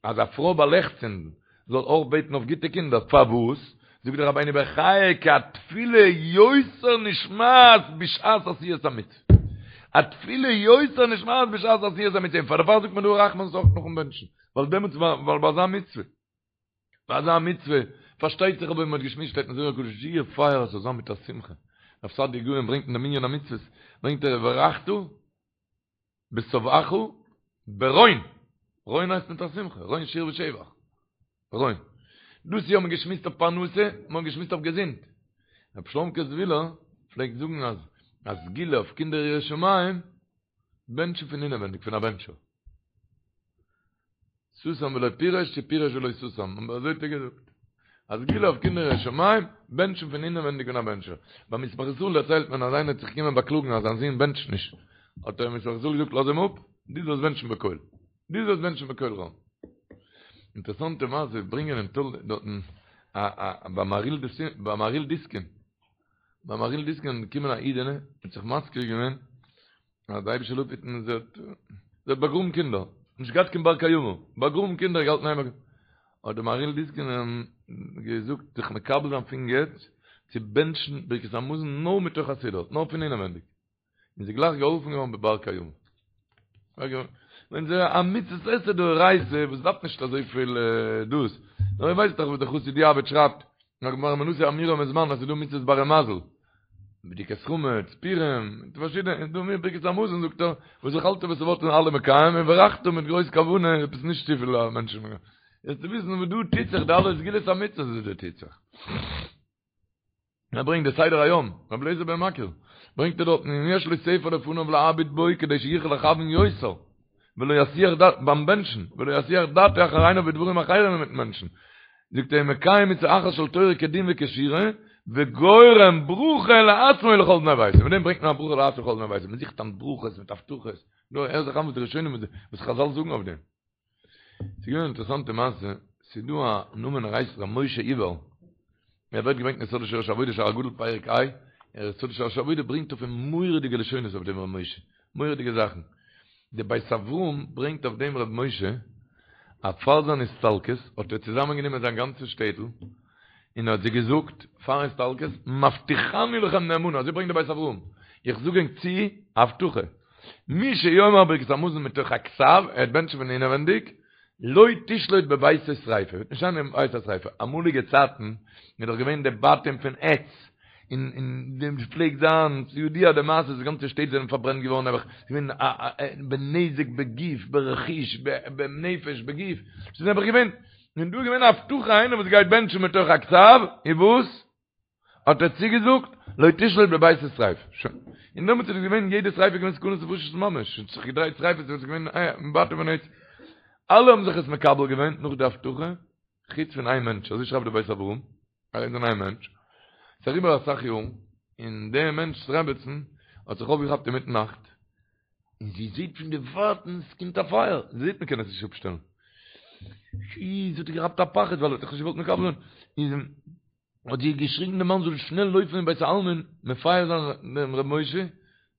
אז א פרוי ביי לעכט צינדן זאל אויך בעטן אויף גוטע קינדער, פארוואס? זאגט דער רבינו בחיי כי התפילה יותר נשמעת בשעת עשיית המצוה, התפילה יותר נשמעת בשעת עשיית המצוה, און פאר דערפאר זאגט מען דא הרחמנ'ס אויך נאכן בענטשן, ווייל דעמאלטס ווייל ביי אזא מצוה. ביי אזא מצוה, פארשטייט זיך אבער ווי מען האט געשמועסט שטייט אין זוהר הקדוש זייער פייער עס זאל זיין מיט א שמחה, רב סעדיה גאון ברענגט אין די מנין המצוות ברענגט ער וברכת בשבעך ברון, רון הייסט מיט א שמחה, רון שיר ושבח, רון. דאס יאר האט מען געשמועסט אויף פרנסה, מען האט געשמועסט אויף געזונט. רבי שלומ'קע זוויהלער פלעגט זאגן אז א סגולה אויף קינדער יראי שמים, בענטשן פון אינעווענדיג פון א בענטשער. סתם ולא פירש צו פירש ולא סתם, אבער אזוי האט ער געזאגט. א סגולה אויף קינדער יראי שמים, בענטשן פון אינעווענדיג פון א בענטשער. ביים ישמח ישראל דערציילט מען אז איינער האט זיך געקומען באקלאגן אז זיין זון בענטשט נישט. האט דער ישמח ישראל געזאגט לאז אים אפ, דו זאלסט בענטשן בקול. דו זאלסט בענטשן בקול רם. אינטערעסאנטע מעשה ברענגען אין טול דארטן א א ביי מהריל דיסקין ביי מהריל דיסקין געקומען א אידענע האט זיך מזכיר געווען אז די אייבישטער זאל אפהיטן זי האט זי האט באגראבן קינדער נישט געהאט קיין בר קיימא באגראבן קינדער געהאלטן איין האט די מהריל דיסקין געזאגט זיך מקבל זיין פון יעצט צו בענטשן ברכת המזון נאר מתוך הסידור נאר פון אינעווענדיג און זי גלייך געהאלפן געווארן בבר קיימא. ווען ס'איז א מצות עשה דאורייתא וואס דארף נישט אזויפיל דאס, נאר איר ווייסט דאך וואס דער חסיד יעבץ שרייבט, אין הגמרא מנשיא אמירה מזמן אז ס'איז דא מצות ברי מזל, בדיקת חמץ, פורים, פארשידענע, איז דא מיר ברכת המזון זאגט ער, וואס אכלת ושבעת אלע מקיים און וברכת מיט גרויס כוונה, עפעס נישט צופיל מענטשן. יעצט צו וויסן וואס דא טוט זיך, די אלע סגולות המצוות וואס דא טוט זיך. ער ברענגט די סדר היום, רבי אליעזר בן מכיר, ברענגט ער דארטן אם יש לו ספר לפניו להביט בו כדי שיוכל לכוון יותר, ולא יסיח דעת, ביים בענטשן, ולא יסיח דעתו אחר עיניו בדברים אחרים אינמיטן בענטשן, זאגט ער מקיים מצוה אחת של תורה כדין וכשורה, וגורם ברכה לעצמו ולכל בני ביתו, מיט דעם ברענגט מען א ברכה לעצמו ולכל בני ביתו, מען זוכט היינט ברכות מיט הבטחות, נו הער זיך איין וואס די ראשונים וואס חזל זאגן אויף דעם. ס'איז געווען אן אינטערעסאנטע מעשה, ס'איז דא א נאמען ער הייסט ר' משה איבער, ער ווערט געברענגט אין יסוד ושורש העבודה שער הגדול פרק ה, דער יסוד ושורש העבודה ברענגט אויף אים מורא'דיגע לשונות אויף דעם ר' משה, מורא'דיגע זאכן, די בית אברהם ברענגט אויף דעם ר' משה, אז פאר זיין הסתלקות האט ער צוזאמען גענומען זיין גאנצע שטעטל, און ער האט זיי געזאגט פארן הסתלקות, מבטיחני לכם נאמנה, אזוי ברענגט די בית אברהם, איך זאג ענק צו א הבטחה, מי שיאמר ברכת המזון מתוך הכתב, ער וועט בענטשן פון אינעווענדיג, לא תשלוט בביתו שריפה, וועט נישט זיין אין ביתו שריפה, אמאליגע צייטן איז דאך געווען די בתים פון עץ, און און דעם פלעגט זיין, ס'איז ידוע די מעשה, די גאנצע שטעט זענען פארברענט געווארן נעבעך, ס'איז געווען א בנזק בגוף, ברכוש, בנפש, בגוף, ס'איז נעבעך געווען, און דא איז געווען א הבטחה איינער וואס גייט בענטשן מתוך הכתב, און וואס? האט ער צוגעזאגט, לא תשלוט בביתו שריפה. שוין. און דעמאלטס איז עס געווען, יעדע שריפה איז געווען סכנת נפשות ממש, ס'האט זיך געדרייט שריפות, ס'איז געווען בתים פון עץ. אלע האבן זיך עס מקבל געווען נאך די הבטחה, חוץ פון איין מענטש, אזוי שרייבט דער בית אברהם, חוץ פון איין מענטש. ס'איז אריבער אסאך יארן, און דער מענטש'ס רעבעצן האט זיך אויפגעכאפט אינמיטן נאכט, און זי זעט פון די ווייטנס קומט א פייער, זי זעט מ'קען עס נישט אפשטעלן. שי, זי האט געכאפט א פחד ווייל ער האט זיך נישט געוואלט מקבל זיין. איז האט זי געשריגן דעם מאן זאל שנעל לויפן אין בית העלמין מפייס זיין דעם ר' משה,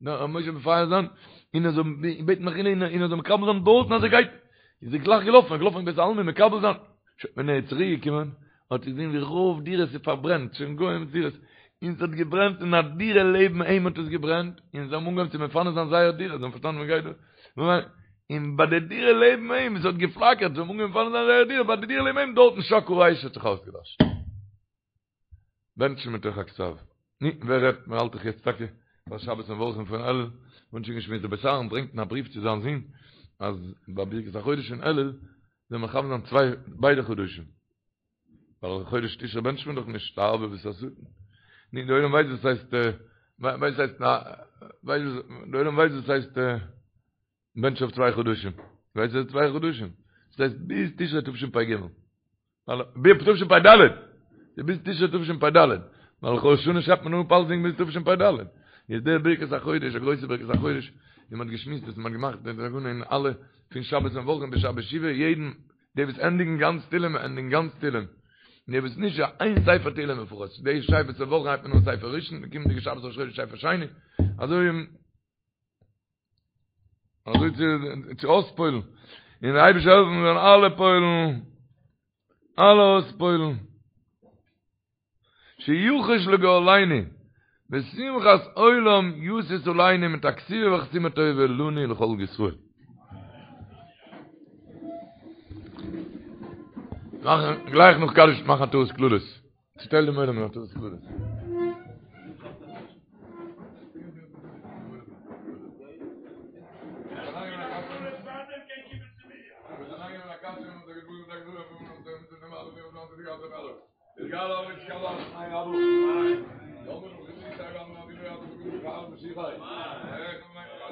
דעם ר' משה מפייס זיין, און ער זאל בעטן מחילה און ער זאל מקבל זיין דארטן אז ער גייט. איז ער גלייך געלאפן, ער איז געלאפן אין בית העלמין מקבל זיין. שוין ווען ער איז צוריק געקומען האט ער געזען ווי רוב דירות איז פארברענט, שוין גוים דירות, און ס'האט געברענט אין א דירה לעבן אים האט עס געברענט, און זיי האבן אנגעהויבן צו מפנה זיין זייער דירה, זיי האבן פארשטאנען וואס גייט דא, און ביי די דירה לעבן אים, עס האט געפלאקערט, זיי האבן אנגעהויבן מפנה זיין זייער דירה, ביי די דירה לעבן אים דארטן שקעה האש האט זיך אויסגעלאשן. בענטשן מתוך הכתב. נו, ווער רעדט, מען האלט דאך יעצט טאקע פאר שבת מברכים פון אלול, מ'האט שוין געשמועסט, דער בית אהרן ברענגט אין א בריוו צו זיין זון, אז ביי ברכת החודש פון אלול, זאל מען מכוון זיין צוויי ביידע חדשים. ווייל חודש תשרי בענטשט מען דאך נישט, לערבב את השטן. נו, די עולם ווייסט וואס הייסט, ווייסט הייסט, ווייסט, די עולם ווייסט וואס הייסט בענטשן אויף צוויי חדשים. ווייסט וואס צוויי חדשים? דאס הייסט ביז תשרי תשפ"ג. ווייל ביז תשפ"ד. ביז תשרי תשפ"ד. ווייל ראש השנה שרייבט מען אפ אלסדינג ביז תשפ"ד. איז דער ברכת החודש, א גרויסע ברכת החודש, ווי מ'האט געשמועסט וואס מ'האט געמאכט די תקנה אין אלע פון שבת מברכים ביז שבת שובה, יעדן די וואס ענדיגן גאנץ תהילים ענדיגן גאנץ תהילים. די וואס נישט יא איין ספר תהילים לפחות. די שבת מברכים הייבט מען אן ספר ראשון, די קומענדיגע שבת ראש חודש ספר שני. אזוי אזוי צו צו אויספועלן. און דער אייבערשטער העלפן מיר זאלן אלע פועלן, אלע אויספועלן. שיחוש לגורלינו, ושמחת עולם ישיש עלינו מיט א כתיבה וחתימה טובה לנו ולכל ישראל. מאכן גלייך נאך קדיש מאכן עטרת כללות. צוטייל דעם עולם אין עטרת כללות.